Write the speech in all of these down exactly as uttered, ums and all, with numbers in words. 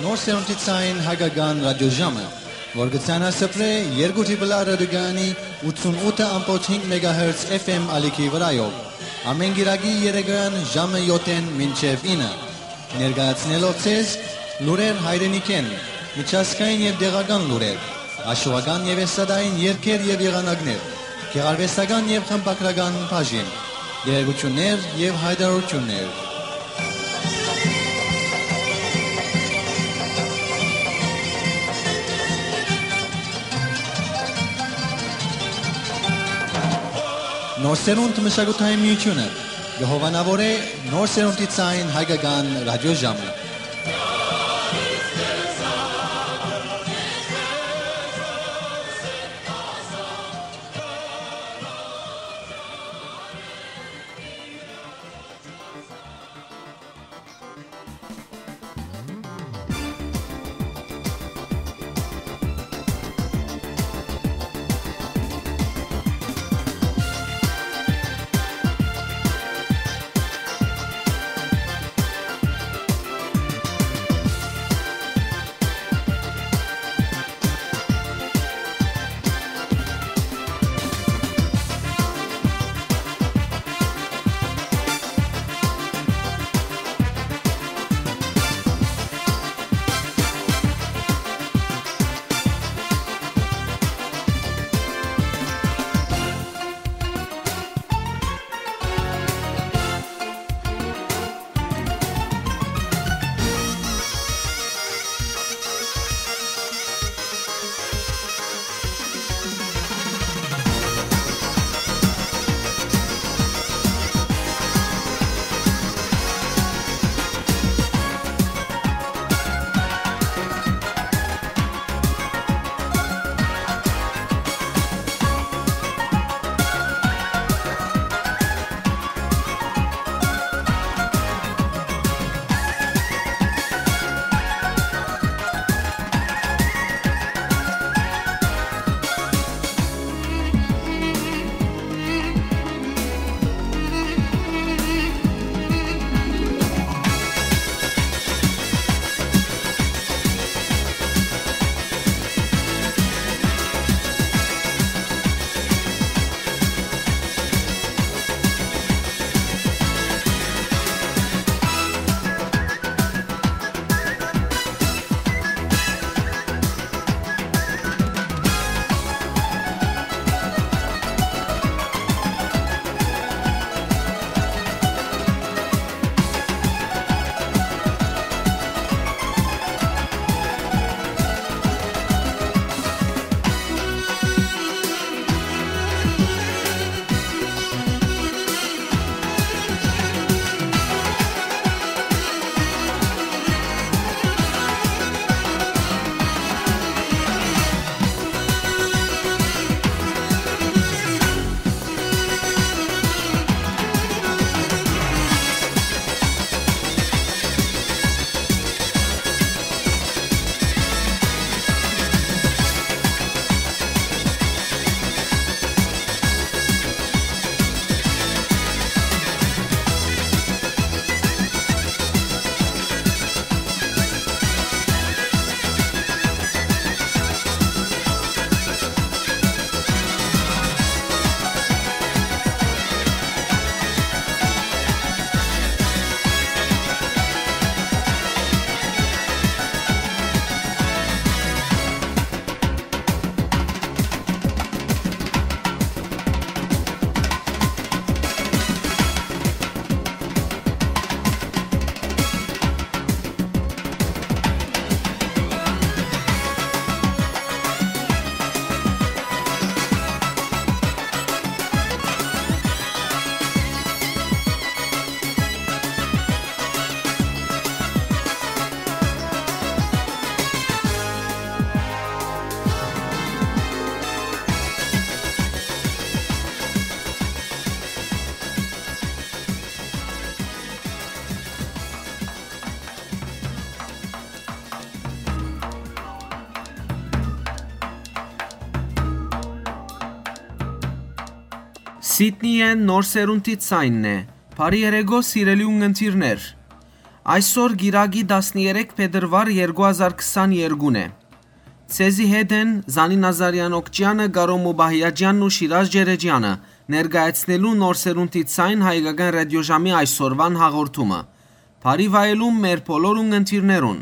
Նոր սերունդի ցային հայկական ռադիոժամը, որ կը ցանասփռէ երկու Triple R ռադիոկայանի ութսունութ ամբողջ հինգ մեգահերց F M ալիքի վրայով, ամէն կիրակի երեկոյեան ժամը յոթ մինչեւ ինը, ներկայացնելով ձեզ լուրեր հայրենիքէն, միջազգային եւ տեղական լուրեր, հաշուական եւ էսթատային երգեր եւ եղանակներ, գեղարուեստական եւ խմբագրական բաժին, տեղեկութիւններ եւ յայտարարութիւններ։ Նոր սերունդ մշակութային միութիւնը կը հովանաւորէ նոր սերունդի ցային հայկական ռադիոժամը։ Սիդնիէն նոր սերունդի ցայնն է։ Բարի երեկո, սիրելի ունգընտիրներ։ Այսօր կիրակի տասներեք փետրուար երկու հազար քսաներկուն է։ Ձեզի հետ են Զանի Նազարեան Օքճեանը, Կարո Մուբահիաջեանն ու Շիրազ Ջերեջեանը։ Ներկայացնելու նոր սերունդի ցայն հայկական ռադիոժամի այսօրուան հաղորդումը։ Բարի վայելում մեր բոլոր ունգընտիրներուն։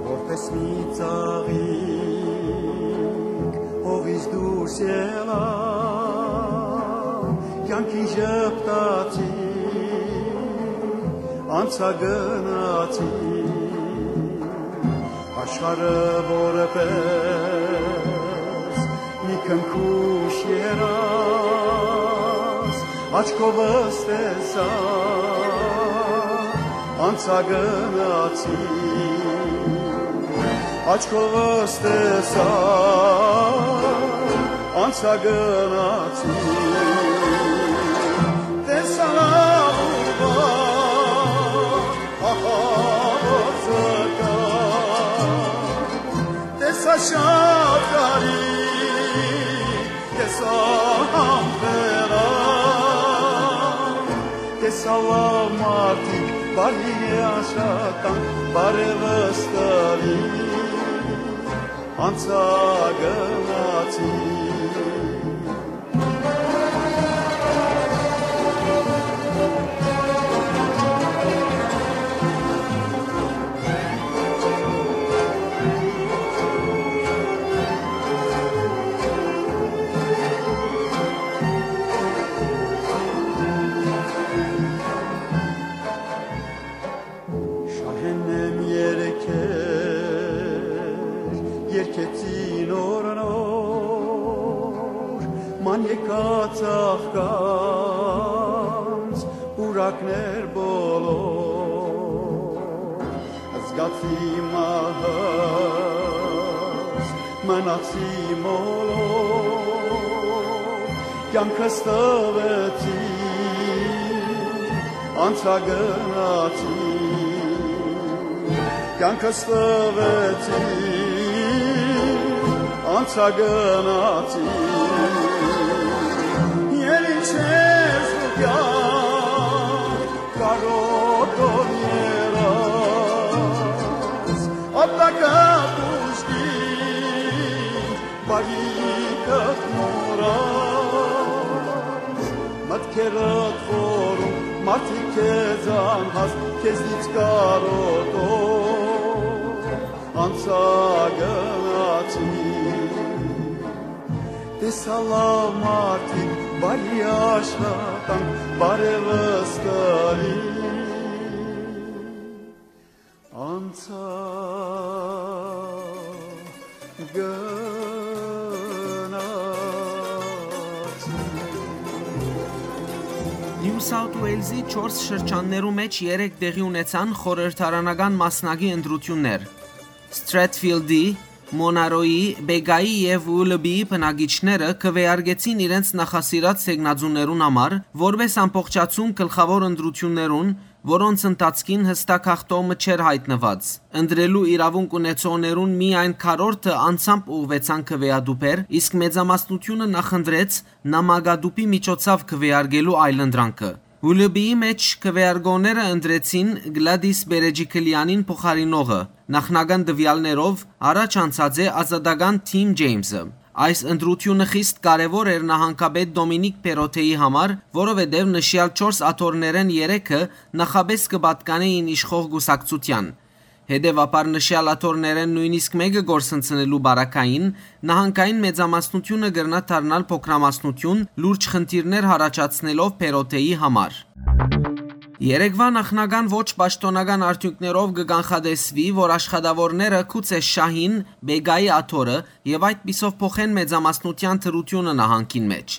Որպես մի ծաղիկ հողից դուրս ելա, կյանքին ժպտացի, անցա գնացի, աշխարհը որպես մի քնքուշ երազ, աչքովս տեսայ, անցա գնացի, աչքովս տեսայ, անցա գնացի, տեսայ լաւուրվա, ահա որ զգայ, տեսայ շատ կարի, տեսայ համբերա, տեսայ լաւ մարդիկ, բարի աշխատանք, բարեւս տալի, անցա գնացի։ Շահեն եմ երկեր, երկեցի նոր նոր, ման եկած աղկանց պուրակներ բոլոր, զգացի մահս, մնացի մոլոր, կյանքս տվեցի, անցա գնացի, կյանքս տվեցի, անցա գնացի, ել ինչ ես դու կյանք կարոտոր երազ, ապտակը դուժկի, բարիքդ մոռաս, մտքերդ խորում, մարդիկ քեզ անհաս, քեզնից կարոտոր, անցա գնացի, տեսայ լաւ մարդիկ, բարի աշխատանք, բարեւս տալի, անցայ գնացի։ Նիու Սաութ Ուէյլզի չորս շրջաններու մէջ երեկ տեղի ունեցան խորհրդարանական մասնակի ընտրութիւններ։ Սթրեթֆիլդի, Մոնարոյի, Բեգայի եւ Ուլլբիի բնակիչները քուէարկեցին իրենց նախասիրած թեկնածուներուն համար, որպէս ամբողջացում գլխաւոր ընտրութիւններուն, որոնց ընթացքին յստակ հաղթող մը չէր յայտնուած։ Ընտրելու իրաւունք ունեցողներուն միայն քառորդը անձամբ ուղղուեցան քուէատուփեր, իսկ մեծամասնութիւնը նախընտրեց նամակատուփի միջոցաւ քուէարկելու այլընտրանքը։ Ուլլբիի մէջ քուէարկողները ընտրեցին Գլադիս Բերեջիկլեանին փոխարինողը, նախնական տուեալներով առաջ անցած է ազատական Թիմ Ջեյմսը։ Այս ընտրութիւնը խիստ կարեւոր էր նահանգապետ Դոմինիկ Պերոթեի համար, որովհետեւ նշեալ չորս աթոռներէն երեքը նախապէս կը պատկանէին իշխող կուսակցութեան։ Հետեւաբար նշեալ աթոռներէն նոյնիսկ մէկը կորսնցնելու պարագային, նահանգային մեծամասնութիւնը կրնայ դառնալ փոքրամասնութիւն, լուրջ խնդիրներ յառաջացնելով Պերոթեի համար։ Երեկվա նախնական ոչ պաշտօնական արդիւնքներով կը կանխատեսուի, որ աշխատաւորները գուցե շահին Բեգայի աթոռը եւ այդպիսով փոխեն մեծամասնութեան դրութիւնը նահանգին մէջ։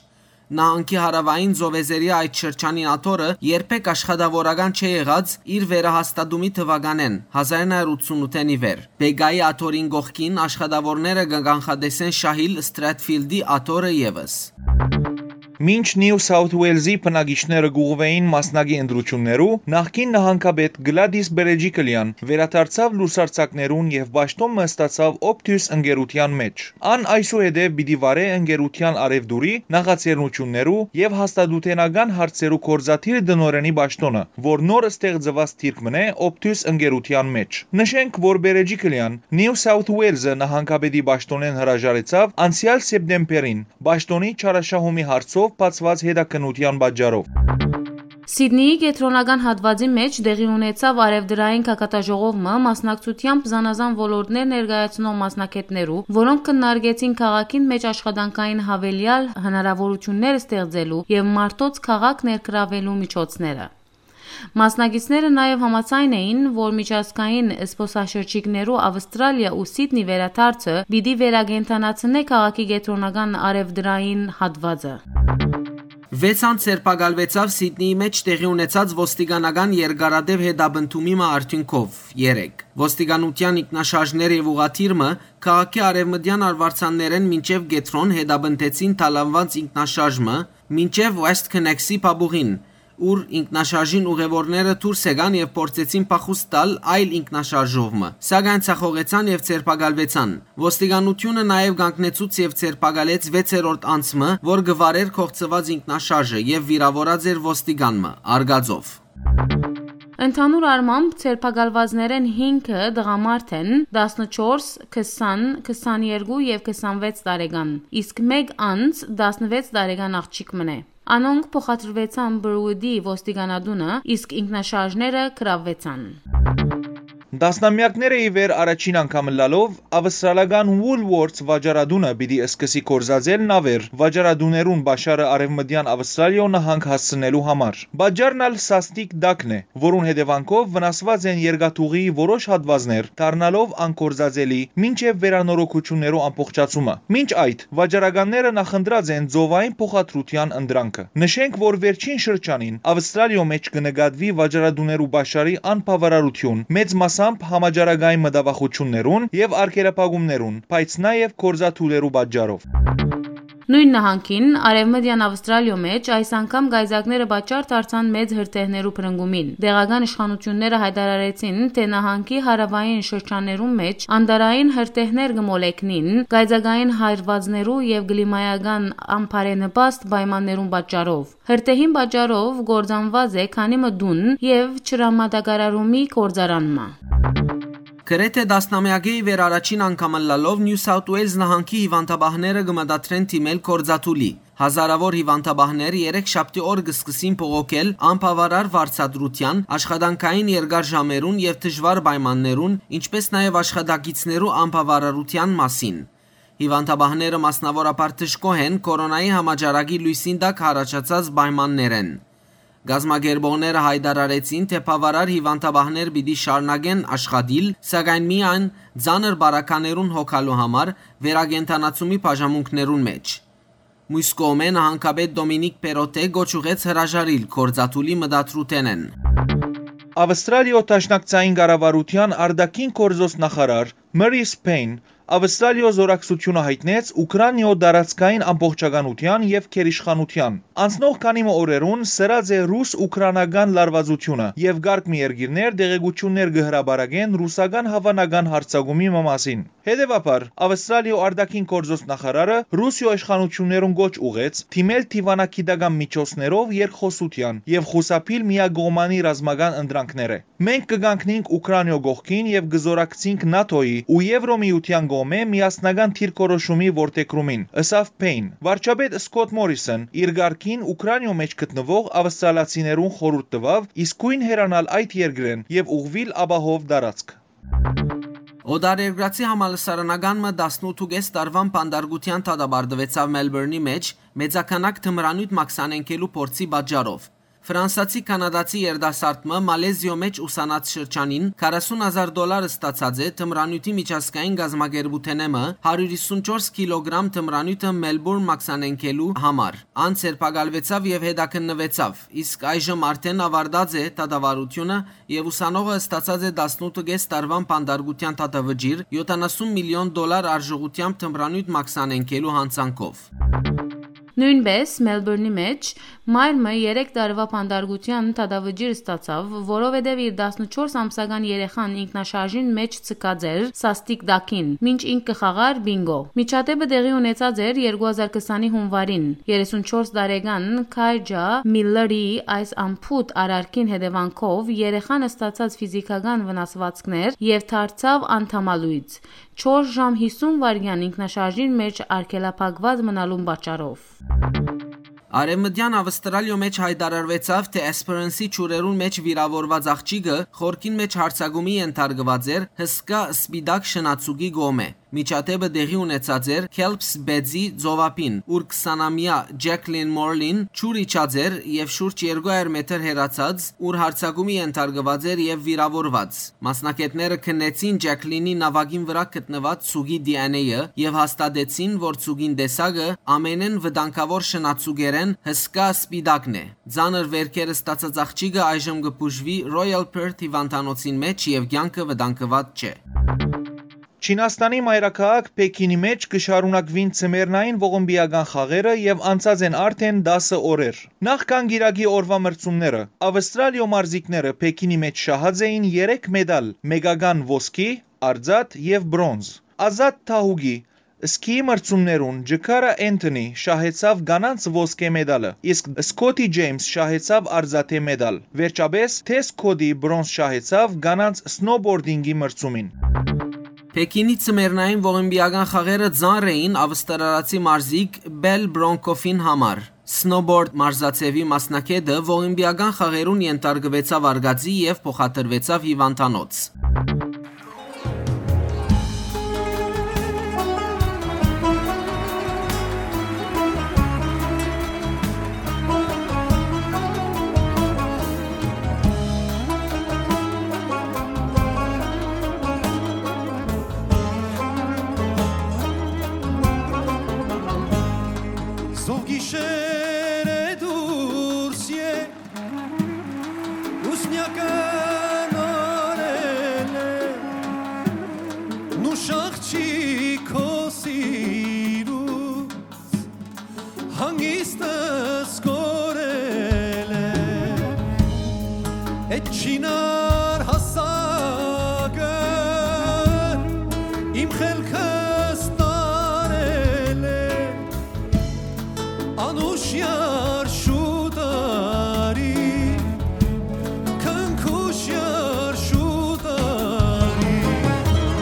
Նահանգի հարաւային ծովեզերեայ այդ շրջանին աթոռը երբեք աշխատաւորական չէ եղած իր վերահաստատումի թուականէն, հազար նոյ հարիւր ութսունութ ի վեր։ Բեգայի աթոռին կողքին աշխատաւորները կը կանխատեսեն շահիլ Սթրեթֆիլդի աթոռը եւս։ Մինչ Նիու Սաութ Ուելզի բնակիչները կ'ուղղուէին մասնակի ընտրութիւններու, նախկին նահանգապետ Գլադիս Բերեջիկլեան վերադարձաւ լուսարձակներուն եւ պաշտօն մը ստացաւ Optus ընկերութեան մէջ։ Ան այսուհետեւ պիտի վարէ ընկերութեան առեւտուրի, նախաձեռնութիւններու եւ հաստատութենական հարցերու գործադիր տնօրէնի պաշտօնը, որ նոր ստեղծուած դիրք մըն է Optus ընկերութեան մէջ։ Նշենք, որ Բերեջիկլեան Նիու Սաութ Ուելզը նահանգապետի պաշտօնէն հրաժարեցաւ անցեալ սեպտեմբերին, պաշտօնի չարաշահումի հարցով բացուած հետաքննութեան պատճառով։ Սիդնիի կեդրոնական հատուածի մէջ տեղի ունեցաւ արեւտրային գագաթաժողով մը, մասնակցությամբ զանազան ոլորտներ ներկայացնող մասնագէտներու, որոնք քննարկեցին քաղաքին մէջ աշխատանքային յաւելեալ հնարաւորութիւններ ստեղծելու եւ մարդոց քաղաք ներգրաւելու միջոցները։ Մասնակիցները նաեւ համաձայն էին, որ միջազգային զբօսաշրջիկներու Ավստրալիա ու Սիդնի վերադարձը պիտի վերակենդանացնէ քաղաքի կեդրոնական արեւտրային հատուածը։ Վեց անձ ձերբակալուեցաւ Սիդնիի մէջ տեղի ունեցած ոստիկանական երկարատեւ հետապնդումի մը արդիւնքով երեկ։ Ոստիկանութեան ինքնաշարժներ եւ ուղղաթիռ մը քաղաքի արեւմտեան արուարձաններէն մինչեւ կեդրոն հետապնդեցին թալանուած ինքնաշարժ մը մինչեւ West Connexy փապուղին, ուր ինքնաշարժին ուղեւորները դուրս եկան եւ փորձեցին փախուստ տալ այլ ինքնաշարժով մը, սակայն ձախողեցան եւ ձերբակալուեցան։ Ոստիկանութիւնը նաեւ կանգնեցուց եւ ձերբակալեց վեցերորդ անձ մը, որ կը վարէր կողցուած ինքնաշարժը եւ վիրաւորած էր ոստիկան մը՝ արգածով։ Ընդհանուր առմամբ, ձերբակալուածներէն հինգը տղամարդ են, տասնչորս, քսան, քսաներկու եւ քսանվեց տարեկան, իսկ մէկ անձ տասնվեց տարեկան աղջիկ մըն է։ Անոնք փոխադրուեցան Բրուդի ոստիկանատունը, իսկ ինքնաշարժները գրաւուեցան։ Տասնամեակներ է ի վեր առաջին անգամ ըլլալով, ավստրալական Woolworths վաճառատունը պիտի սկսի գործածել նաւեր վաճառատուներուն պաշարը արեւմտեան Ավստրալիոյ նահանգ հասցնելու համար։ Պատճառն ալ սաստիկ տակն է, որուն հետեւանքով վնասուած են երկաթուղիի որոշ հատուածներ, դառնալով անկործածելի, մինչեւ վերանորոգութիւններու ամբողջացումը։ Մինչ այդ, վաճառականները նախընտրած են ծովային փոխադրութեան ընտրանքը։ Նշենք, որ վերջին շրջանին Ավստրալիոյ մէջ կը նկատուի վաճառատուներու պաշարի անբաւարարութիւն, մեծ մասամբ համաճարակային մտավախութիւններուն եւ արգելափակումներուն, բայց նաեւ գործադուներու պատճառով։ Նոյն նահանգին, Արեւմտեան Ավստրալիոյ մէջ այս անգամ կայծակները պատճառ դարձան մեծ հրդեհներու բռնկումին։ Տեղական իշխանութիւնները յայտարարեցին, թէ նահանգի հարաւային շրջաններուն մէջ անտառային հրդեհներ կը մոլեգնին կայծակային հարուածներու եւ կլիմայական անբարենպաստ պայմաններուն պատճառով։ Հրդեհին պատճառով կործանուած է քանի մը տուն եւ ջրամատակարարումի գործարան մը։ Գրեթէ տասնամեակէ ի վեր առաջին անգամ ըլլալով Նիու Սաութ Ուելզ նահանգի հիւանդապահները կը մտադրեն դիմել կորզաթուլի։ Հազարաւոր հիւանդապահներ երեկ շաբթի օր կը սկսին բողոքել անբաւարար վարձատրութեան, աշխատանքային երկար ժամերուն եւ դժուար պայմաններուն, ինչպէս նաեւ աշխատակիցներու անբաւարարութեան մասին։ Հիւանդապահները մասնաւորաբար դժգոհ են կորոնայի համաճարակի լոյսին տակ յառաջացած պայմաններէն։ Կազմակերպողները յայտարարեցին, թէ բաւարար հիւանդապահներ պիտի շարունակեն աշխատիլ, սակայն միայն ծանր բարագաներուն հոգալու համար վերակենդանացումի բաժանմունքներուն մէջ։ Մյուս կողմէ, նահանգապետ Դոմինիկ Պերոթէ կոչ ուղղեց հրաժարիլ կորզաթուլի մտադրութենէն։ Ավստրալիոյ Դաշնակցային կառավարութեան արտաքին գործոց նախարար Մըրիս Փէյն Ավստրալիոյ զօրակցութիւնը յայտնեց Ուքրանիոյ տարածքային ամբողջականութեան եւ գերիշխանութեան։ Անցնող քանի մը օրերուն սրած է ռուս-ուքրանական լարուածութիւնը եւ կարգ մը երկիրներ տեղեկութիւններ կը հրապարակեն ռուսական հաւանական յարձակումի մը մասին։ Հետեւաբար, Ավստրալիոյ արտաքին գործոց նախարարը Ռուսիոյ իշխանութիւններուն կոչ ուղղեց դիմել դիւանագիտական միջոցներով երկխօսութեան եւ խուսափիլ միակողմանի ռազմական ընտրանքներէ։ «Մենք կը կանգնենք Ուքրանիոյ կողքին եւ կը զօրակցենք նատօյի ու Եվրոմիութեան կողմէ միասնական դիրքորոշումի որդեգրումին», ըսաւ Փէյն։ Վարչապետ Սքոթ Մորիսոն իր կարգին Ուքրանիոյ մէջ գտնուող ավստրալացիներուն խորհուրդ տուաւ իսկոյն հեռանալ այդ երկրէն եւ ուղղուիլ ապահով տարածք։ Օտարերկրացի համալսարանական մը տասնութ ու կէս տարուան բանտարկութեան դատապարտուեցաւ Մելբուրնի մէջ մեծաքանակ թմրանիւթ մաքսանենգելու փորձի պատճառով։ Ֆրանսացի-կանադացի երիտասարդ մը Մալեզիոյ մէջ ուսանած շրջանին քառասուն հազար դոլար ստացած է թմրանիւթի միջազգային կազմակերպութենէ մը հարիւր հիսուն չորս կիլոգրամ թմրանիւթը Մելբուրն մաքսանենգելու համար։ Ան ձերբակալուեցաւ եւ հետաքննուեցաւ, իսկ այժմ արդէն աւարտած է դատավարութիւնը եւ ուսանողը ստացած է տասնութ ու կէս տարուան բանտարկութեան դատավճիռ յոթանասուն միլիոն դոլար արժողութեամբ թմրանիւթ մաքսանենգելու յանցանքով։ Նոյնպէս Մելբուրնի մէջ մայր մը երեք տարուայ բանտարկութեան դատավճիռ ստացաւ, որովհետեւ իր տասնչորս ամսական երեխան ինքնաշարժին մէջ ձգած էր սաստիկ տակին, մինչ ինք կը խաղար պինկո։ Միջադէպը տեղի ունեցած էր երկու հազար քսանի հունուարին։ Երեսունչորս տարեկան Քայջա Միլլերի այս անփութ արարքին հետեւանքով երեխան ստացած ֆիզիքական վնասուածքներ եւ դարձաւ անդամալոյծ, չորս ժամ հիսուն վայրկեան ինքնաշարժին մէջ արգելափակուած մնալուն պատճառով։ Արեւմտեան Աւստրալիոյ մէջ յայտարարուեցաւ, թէ Էսփերենսի ջուրերուն մէջ վիրաւորուած աղջիկը խորքին մէջ յարձակումի ենթարկուած էր հսկայ սպիտակ շնացուկի կողմէ։ Միջադէպը տեղի ունեցած էր Քելփս Բեդզի ծովափին, ուր քսանամեայ Ջեքլին Մորլին ջուր իջած էր եւ շուրջ երկու հարիւր մետր հեռացած, ուր յարձակումի ենթարկուած էր եւ վիրաւորուած։ Մասնագէտները քննեցին Ջեքլինի նաւակին վրայ գտնուած ցուկի D N A-ը եւ հաստատեցին, որ ցուկին տեսակը ամենէն վտանգաւոր շնացուկերէն հսկայ սպիտակն է։ Ծանր վէրքեր ստացած աղջիկը այժմ կը բուժուի Royal Perth հիւանդանոցին մէջ եւ կեանքը վտանգուած չէ։ Չինաստանի մայրաքաղաք Փեքինի մէջ կը շարունակուին ձմեռնային ողմպիական խաղերը եւ անցած են արդէն տասը օրեր։ Նախքան կիրակի օրուայ մրցումները, Աւստրալիոյ մարզիկները Փեքինի մէջ շահած էին երեք մետալ՝ մեկական ոսկի, արծաթ եւ պրոնզ։ Ազատ թահուկի սքիի մրցումներուն Ջքարա Էնթոնի շահեցաւ կանանց ոսկէ մետալը, իսկ Սքոթի Ջեյմս շահեցաւ արծաթի մետալ։ Վերջապէս Թէս Քոդի պրոնզ շահեցաւ կանանց սնոուբորդինկի մրցումին։ Փեքինի ձմեռնային ողմպիական խաղերը ծանր էին աւստրալացի մարզիկ Պել Պրոնկոֆին համար։ Սնոուբորդ մարզաձեւի մասնագէտը ողմպիական խաղերուն ենթարկուեցաւ արկածի եւ փոխադրուեցաւ հիւանդանոց։ Զով գիշեր է դուրս եկել, ուսնյակը նորել է, նուշ աղջիկ քո սիրուց հանգիստս կորել է։ Էդ չինար հասակը իմ խելքս տարել է, անուշ յարշու տարի, քնքուշ յարշու տարի,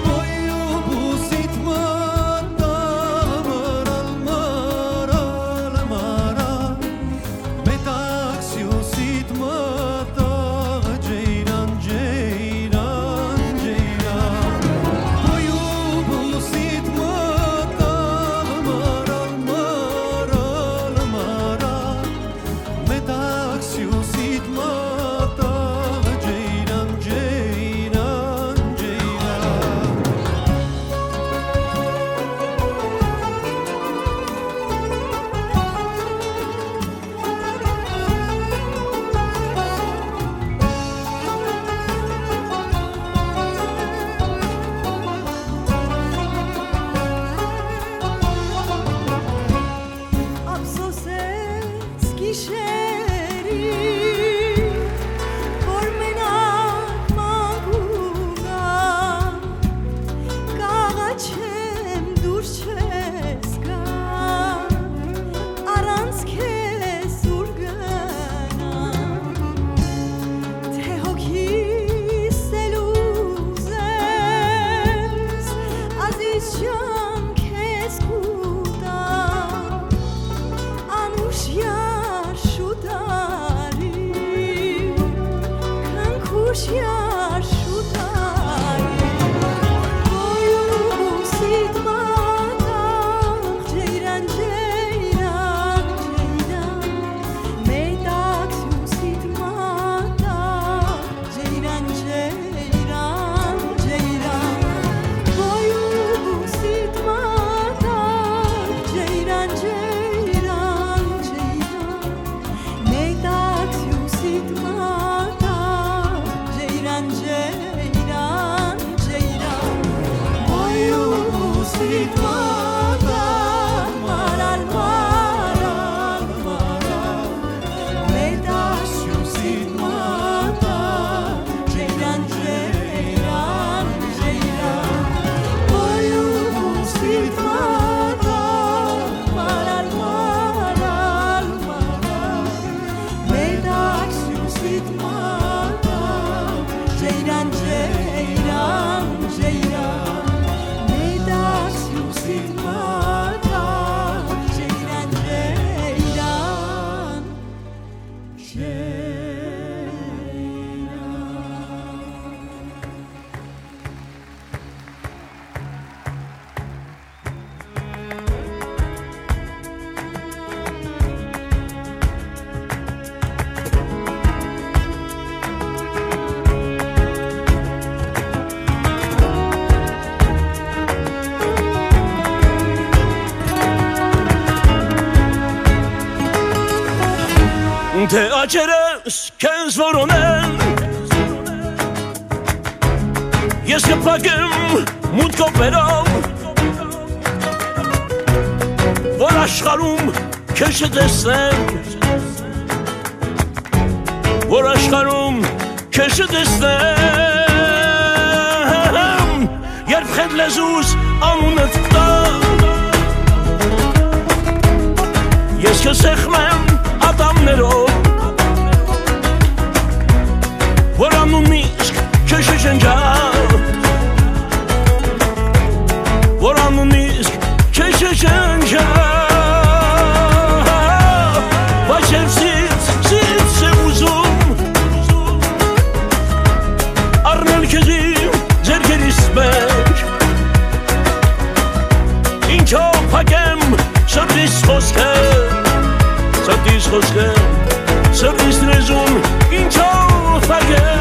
պոյ ու բուսիդ մատաղ մռալ, մռալ, մռալ, մետաքսիուսիդ մատաղ, ջեյրան, ջեյրան, ջեյրան, պոյ ու բուսիդ մատաղ մռալ, մռալ, մռալ, մետաքսիուսիդ մատաղ, ջեյրան, ջեյրան, ջեյրան։ Ափսոսեց գիշերին, որ մենակ մանկու գամ, կաղաչեմ դուրս չես գալ, առանց քեզ ուր գնամ, թե հոգիս էլ ուզես, ազիզ ջան, քեզ կուտամ, անուշ յարշու տարի, քնքուշ յարշու տարի, պոյ ու բուսիդ մատաղ, ջեյրան, ջեյրան, ջեյրան, մետաքսիուսիդ մատաղ, ջեյրան, ջեյրան, ջեյրան, պոյ ու բուսիդ մատաղ, ջեյրան, ջեյրան, ջեյրան, մետաքսիուսիդ մատաղ, ջեյրան, Դե աճերս քեզ որոնել, ես կփակեմ մուտքով վերով, որ աշխարհում քեզ չտեսնեմ, որ աշխարհում քեզ չտեսնեմ, երբ խետ լեզուս անունդ տա, ես կսեղմեմ ատամներով, որ անունն իսկ քեզ չջնջա, որ անունն իսկ քեզ չջնջա, բայց երբ զինց, զինց է ուզում առնել քեզ իմ ձեռքերիս մէջ, ինչով փակեմ սրտիս խօսքը, սրտիս խօսքը, սրտիս լեզուն, ինչով փակեմ։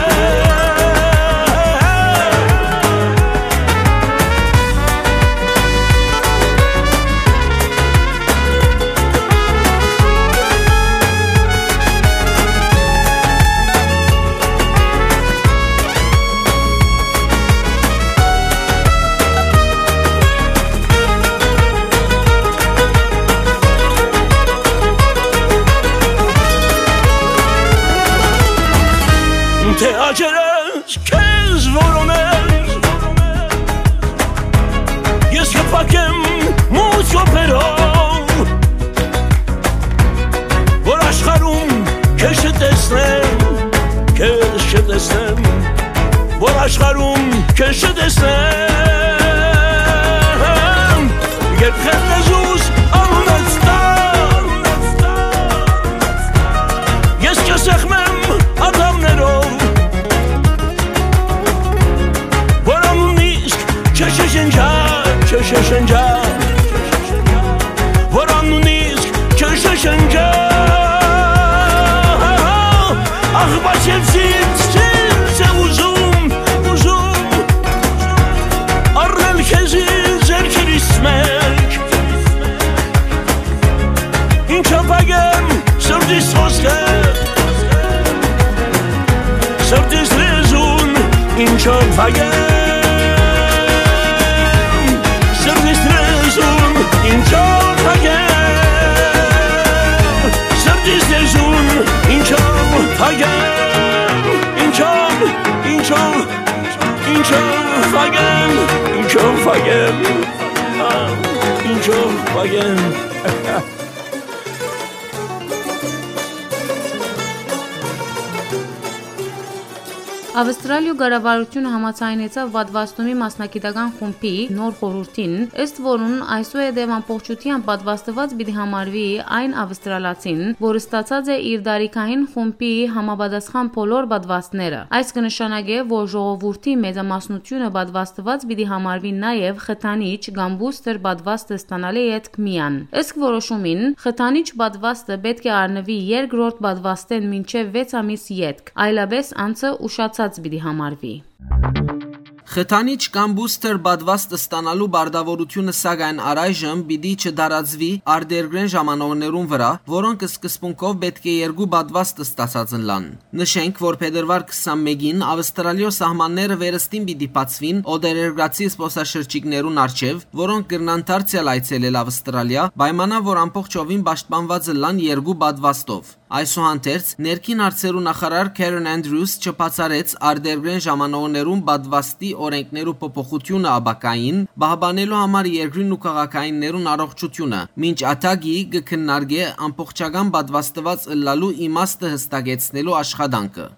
Դե աճերս քեզ որոնել, ես կփակեմ մութ կոփերով, որ աշխարհում քեզ չտեսնեմ, քեզ չտեսնեմ, որ աշխարհում քեզ չտեսնեմ, երբ խետ լեզուս անունդ տա, ես կսեղմեմ ատամներով, որ անունն իսկ չշշնջա, չշշնջա, որ անունն իսկ չշշնջա, ախ, բայց ես ինձ, ինձ է ուզում, ուզում, առնել քեզի ձեռքերիս մեջ, ինչով փակեմ սրտիս խօսքը, սրտիս լեզուն, ինչով փակեմ սրտիս լեզուն, ինչով փակեմ սրտիս լեզուն, ինչով փակեմ, ինչով, ինչով, ինչով փակեմ, ինչով փակեմ, ինչով փակեմ։ Ավստրալիոյ կառավարութիւնը համաձայնեցաւ պատուաստումի մասնագիտական խումբի նոր խորհուրդին, ըստ որուն այսուհետեւ ամբողջութեամբ պատուաստուած պիտի համարուի այն ավստրալացին, որ ստացած է իր տարիքային խումբի համապատասխան բոլոր պատուաստները։ Այս կը նշանակէ, որ ժողովուրդի մեծամասնութիւնը պատուաստուած պիտի համարուի նաեւ խթանիչ կամ բուսթեր պատուաստը ստանալէ ետք միայն։ Իսկ որոշումին խթանիչ պատուաստը պէտք է առնուի երկրորդ պատուաստէն մինչեւ վեց ամիս ետք, այլապէս անձը ուշացած պիտի համարուի։ Խթանիչ կամ բուսթեր պատուաստ ստանալու պարտաւորութիւնը, սակայն, առայժմ պիտի չտարածուի արտերկրէն ժամանողներուն վրայ, որոնք սկզբունքով պէտք է երկու պատուաստ ստացած ըլլան։ Նշենք, որ փետրուար քսանմէկին Ավստրալիոյ սահմանները վերստին պիտի բացուին օտարերկրացի զբօսաշրջիկներուն առջեւ, որոնք կրնան դարձեալ այցելել Ավստրալիա, պայմանա որ ամբողջովին պաշտպանուած ըլլան երկու պատուաստով։ Այսուհանդերձ, ներքին հարցերու նախարար Քերեն Անդրիուս չբացառեց արտերկրէն ժամանողներուն պատուաստի օրենքներու փոփոխութիւնը ապագային պահպանելու համար երկրին ու քաղաքայիններուն առողջութիւնը, մինչ ատագի կը քննարկէ ամբողջական պատուաստուած ըլլալու իմաստը յստակեցնելու աշխատանքը։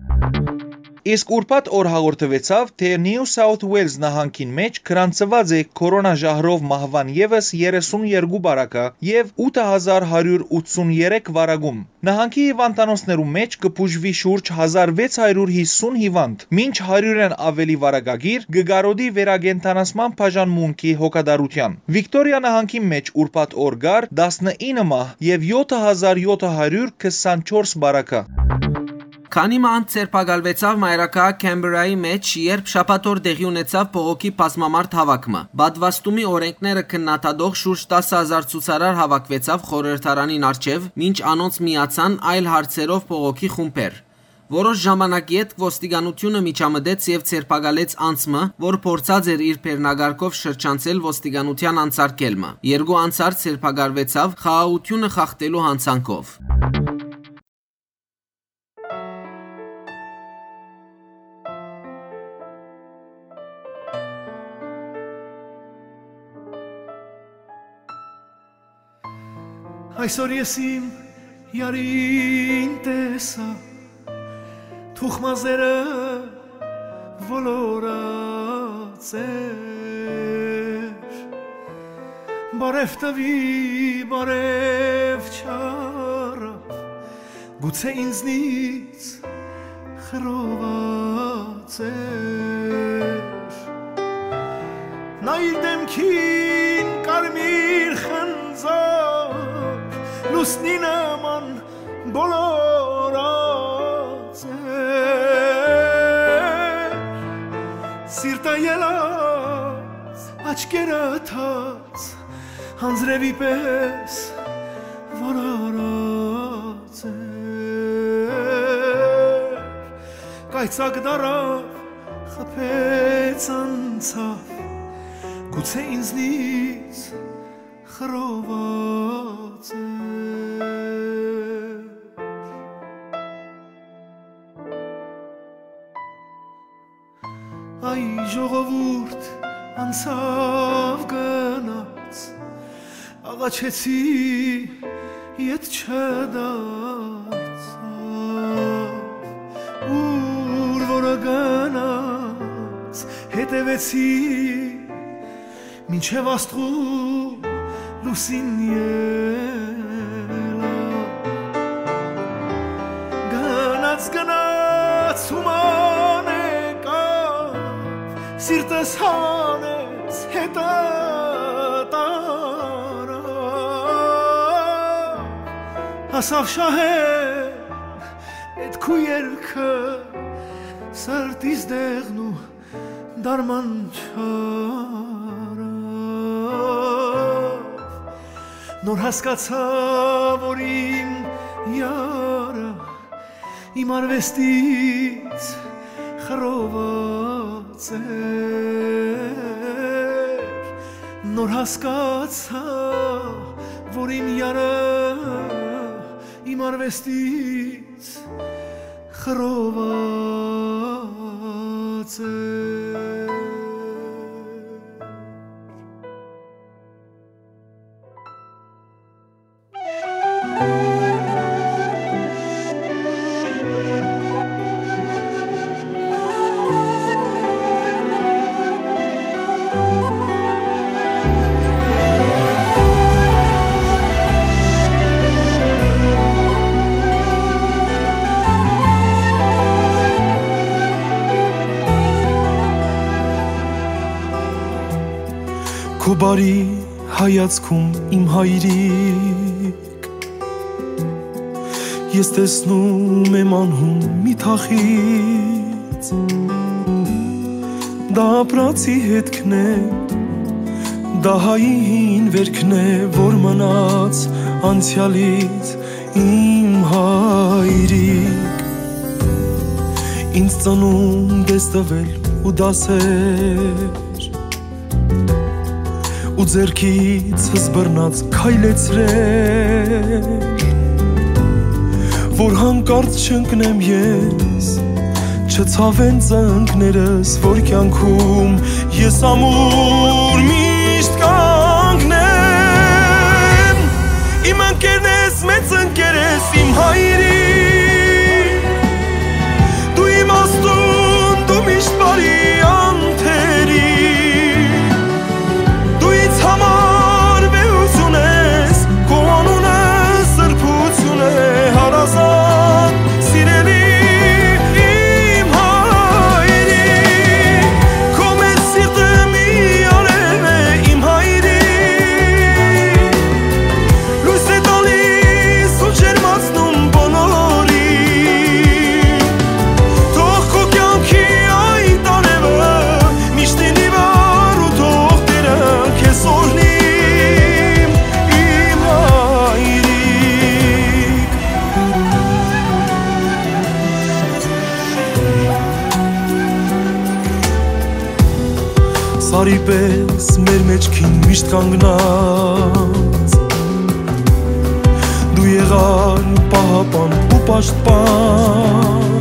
Իսկ ուրբաթ օր հաղորդուեցաւ, թէ Նիու Սաութ Ուէլզ նահանգին մէջ գրանցուած է քորոնա ժահրով մահուան եւս երեսուն երկու բարակը եւ ութ հազար հարիւր ութսուն երեք վարակում։ Նահանգի հիվանդանոցներու մէջ կը բուժուի շուրջ հազար վեց հարիւր յիսուն հիվանդ, մինչ հարիւրէն աւելի վարակագիր կը կարօտի վերակենդանացման բաժանմունքի հոգատարութեան։ Վիկտորիա նահանգի մէջ ուրբաթ օր կար տասնինը մահ եւ եթ հազար եթ հարիւր քսանչորս բարակը։ Քանի մը անց ձերբակալուեցաւ մայրաքաղաք Քեմբերայի մէջ, երբ շաբաթ օր տեղի ունեցաւ բողոքի բազմամարդ հաւաք մը։ Պատուաստումի օրէնքները քննադատող շուրջ տասը հազար ցուցարար հաւաքուեցաւ խորհրդարանին առջեւ, մինչ անոնց միացան այլ հարցերով բողոքի խումբեր։ Որոշ ժամանակ ետք ոստիկանութիւնը միջամտեց եւ ձերբակալեց անձ մը, որ փորձած էր իր բեռնակառքով շրջանցել ոստիկանութեան անցարկել մը։ Երկու անցարդ ձերբակալուեցաւ խաղաղութիւնը խախտելու յանցանքով։ Այսօր ես իմ յարին տեսայ, թուխմազերը ոլորած էր։ Բարեւ տուի, բարեւ չարաւ, գուցէ ինձնից խռոված էր։ Նա իր դէմքին կարմիր խնձոր լուսնի նման բոլորած էր։ Սիրտը ելած, աչքերը թած, անձրեւի պէս որ արած էր։ Կայծակ դարաւ, խփեց անցաւ, գուցէ ինձնից խռոված էր։ Այ ժողովուրդ անցաւ գնաց, աղաչեցի, ետ չդարձաւ, ուր որ գնաց, հետեւեցի, մինչեւ աստղու լուսին ելա։ Գնաց, գնաց, ուման եկաւ, սիրտս հանեց, հետը տարաւ։ Հասաւ շահեր, էդ քու երգը, սրտիս դեղն ու դարման չարաւ։ Նոր հասկացայ, որ իմ յարը իմ արուեստից խռոված էր։ Նոր հասկացայ, որ իմ յարը իմ արուեստից խռոված էր։ Քու բարի հայացքում, իմ հայրիկ, ես տեսնում եմ անհուն մի թախիծ։ Դա ապրածի հետքն է, դա հայի հին վերքն է, որ մնաց անցեալից, իմ հայրիկ։ Ինձ ծնունդ ես տվել ու դասեր, ու ձեռքիցս բռնած քայլեցրել, որ յանկարծ չընկնեմ ես, չցաւեն ծնկներս, որ կեանքում ես ամուր միշտ կանգնեմ։ Իմ ընկերն ես, մեծ ընկեր ես, իմ հայրիկ, դու իմ աստուն, դու միշտ բարի անթերի, դու ինձ համար վեհություն ես, քո անունը սրբություն է, հարազատ, սիրելի իմ հայրիկ, քո մեր սիրտը մի արեւ է, իմ հայրիկ, լոյս է տալիս ու ջերմացնում բոլոր Սարի պես մեր մեջքին միշտ կանգնած, դու եղար պահապան ու պաշտպան,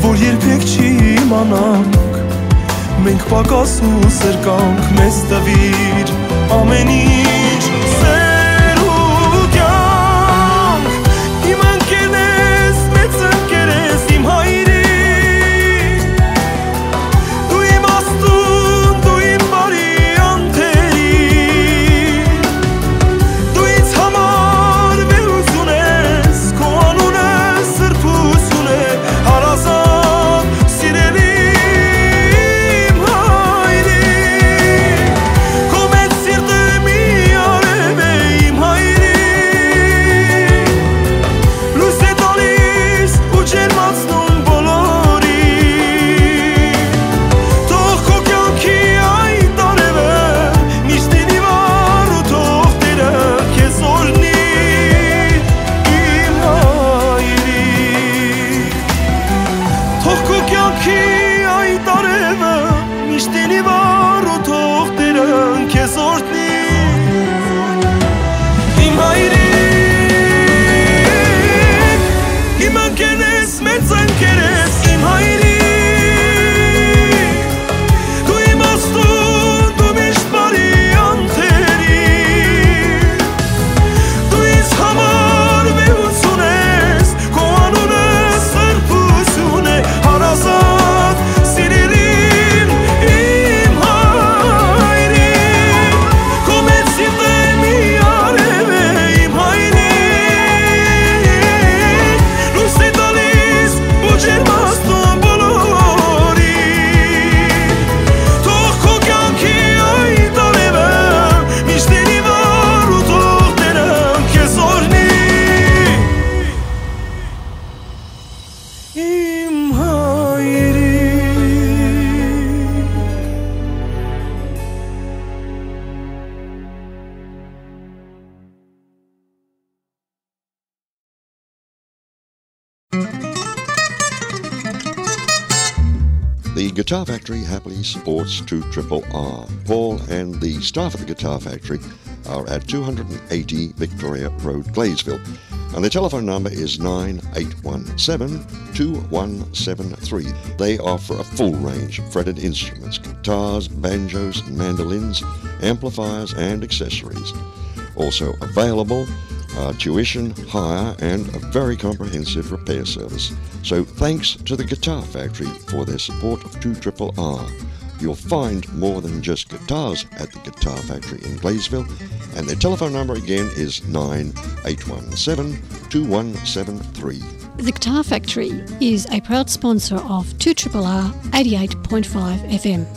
որ երբեք չի իմանանք, մենք պակաս ու սրկանք, մեզ տվիր ամեն ինչ, սեր ու կյանք, իմ ընկերն ես, մեծ ընկեր ես, իմ հայրիկ, դու իմ աստուն, դու իմ բարի անթերի, դու ինձ համար վեհ ուզում ես, քո անունը սրբություն է, հարազատ, սիրելի իմ հայրիկ, քո մեծ սիրտը մի արև է, իմ հայրիկ, լոյս է տալիս ու ջերմացնում բոլորին, թող քո կյանքի այդ արևը միշտ լինի վառ ու թող Տերը քեզ օրհնի, իմ հայրիկ։ Թող քո կյանքի այդ արևը միշտ լինի վառ ու թող Տերը քեզ օրհնի, իմ հայրիկ, իմ ընկերն ես, մեծ ընկեր ես, իմ հայրիկ, դու իմ աստուն, դու միշտ բարի անթերի, դու ինձ համար վեհ ուզում ես, քո անունը սրբություն է, հարազատ, սիրելի իմ հայրիկ, քո մեծ սիրտը մի արև է, իմ հայրիկ, լոյս է տալիս ու ջերմացնում բոլորին, թող քո կյանքի այդ արևը միշտ լինի վառ ու թող Տերը քեզ օրհնի, իմ հայրիկ։ The Guitar Factory happily supports two triple R. Paul and the staff at the Guitar Factory are at two hundred and eighty Victoria Road, Gladesville. And the telephone number is nine eight one seven, two one seven three. They offer a full range of fretted instruments, guitars, banjos, mandolins, amplifiers, and accessories. Also available, uh, tuition, hire, and a very comprehensive repair service. So thanks to the Guitar Factory for their support of two triple R. You'll find more than just guitars at the Guitar Factory in Gladesville, and their telephone number again is nine eight one seven, two one seven three. The Guitar Factory is a proud sponsor of two triple R eighty-eight point five F M.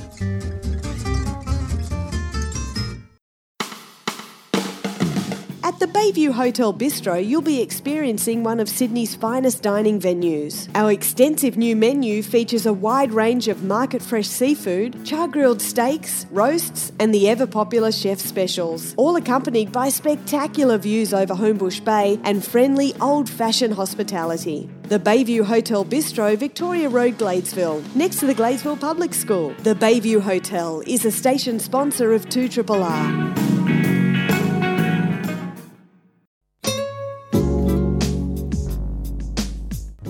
At the Bayview Hotel Bistro, you'll be experiencing one of Sydney's finest dining venues. Our extensive new menu features a wide range of market fresh seafood, char grilled steaks, roasts, and the ever popular chef specials, all accompanied by spectacular views over Homebush Bay and friendly old fashioned hospitality. The Bayview Hotel Bistro, Victoria Road, Gladesville, next to the Gladesville Public School. The Bayview Hotel is a station sponsor of two triple R.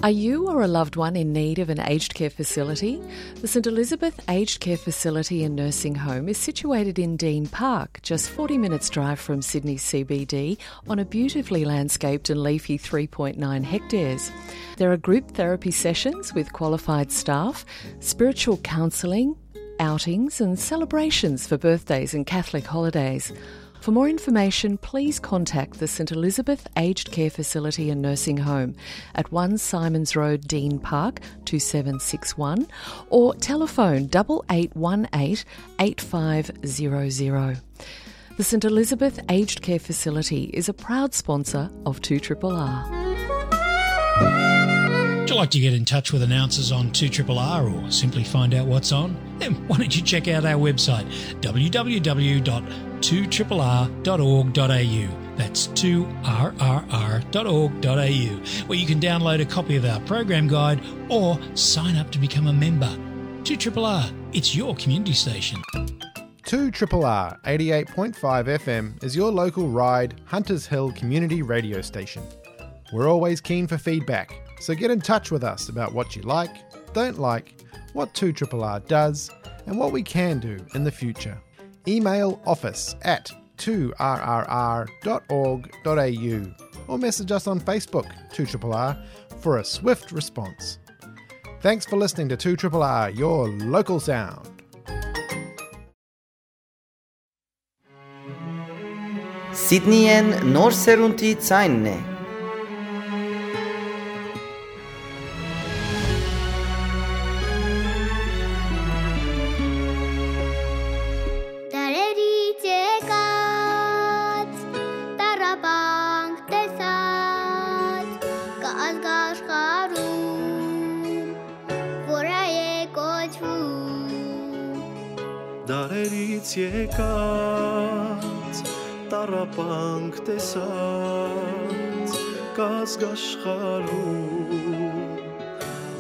Are you or a loved one in need of an aged care facility? The St Elizabeth Aged Care Facility and Nursing Home is situated in Dean Park, just forty minutes drive from Sydney C B D, on a beautifully landscaped and leafy three point nine hectares. There are group therapy sessions with qualified staff, spiritual counselling, outings and celebrations for birthdays and Catholic holidays. For more information, please contact the St Elizabeth Aged Care Facility and Nursing Home at one Symonds Road, Dean Park, two seven six one, or telephone double eight one eight, eight five zero zero. The St Elizabeth Aged Care Facility is a proud sponsor of two triple R. Would you like to get in touch with announcers on two triple R or simply find out what's on? Then why don't you check out our website, w w w dot two triple r dot org dot a u. That's two r r r dot org dot a u, where you can download a copy of our program guide or sign up to become a member. two triple R, It's your community station. Two Triple R eighty-eight point five F M is your local Ryde Hunters Hill community radio station. We're always keen for feedback, so get in touch with us about what you like, don't like, what two Triple R does, and what we can do in the future. Email office at two R R R dot org dot A U or message us on Facebook, two R R R, for a swift response. Thanks for listening to two R R R, your local sound. Սիդնիեն նոր սերունդի ձայնն է։ Դարերից եկած, տառապանք տեսած, կը ազգ աշխարհում, որ հայ է կոչվում։ Դարերից եկած, տառապանք տեսած, կազգ աշխարհում,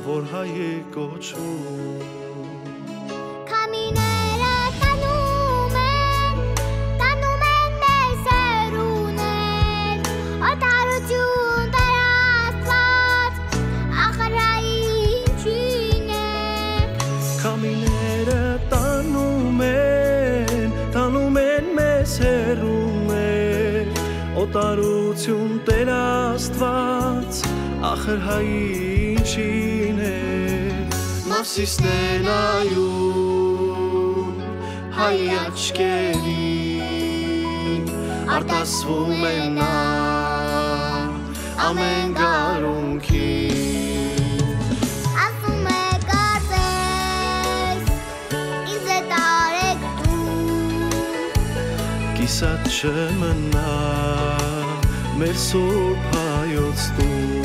որ հայ է կոչվում։ Քամիները տանում են, տանում են մեզ հեռուներ, օտարություն Տեր Աստված, ախր հայ ինչին է։ Քամիները տանում են, տանում են մեզ հեռուներ, օտարություն Տեր Աստված, ախր հայ ինչին է։ Մովսիսն է նայում հայ աչքերին, արտասվում է նա ամեն գարունքին։ Ասում է, կարծես, ինձ է տարեկտուն, կիսատ չմնայ մեր սուրբ հայոց տուն։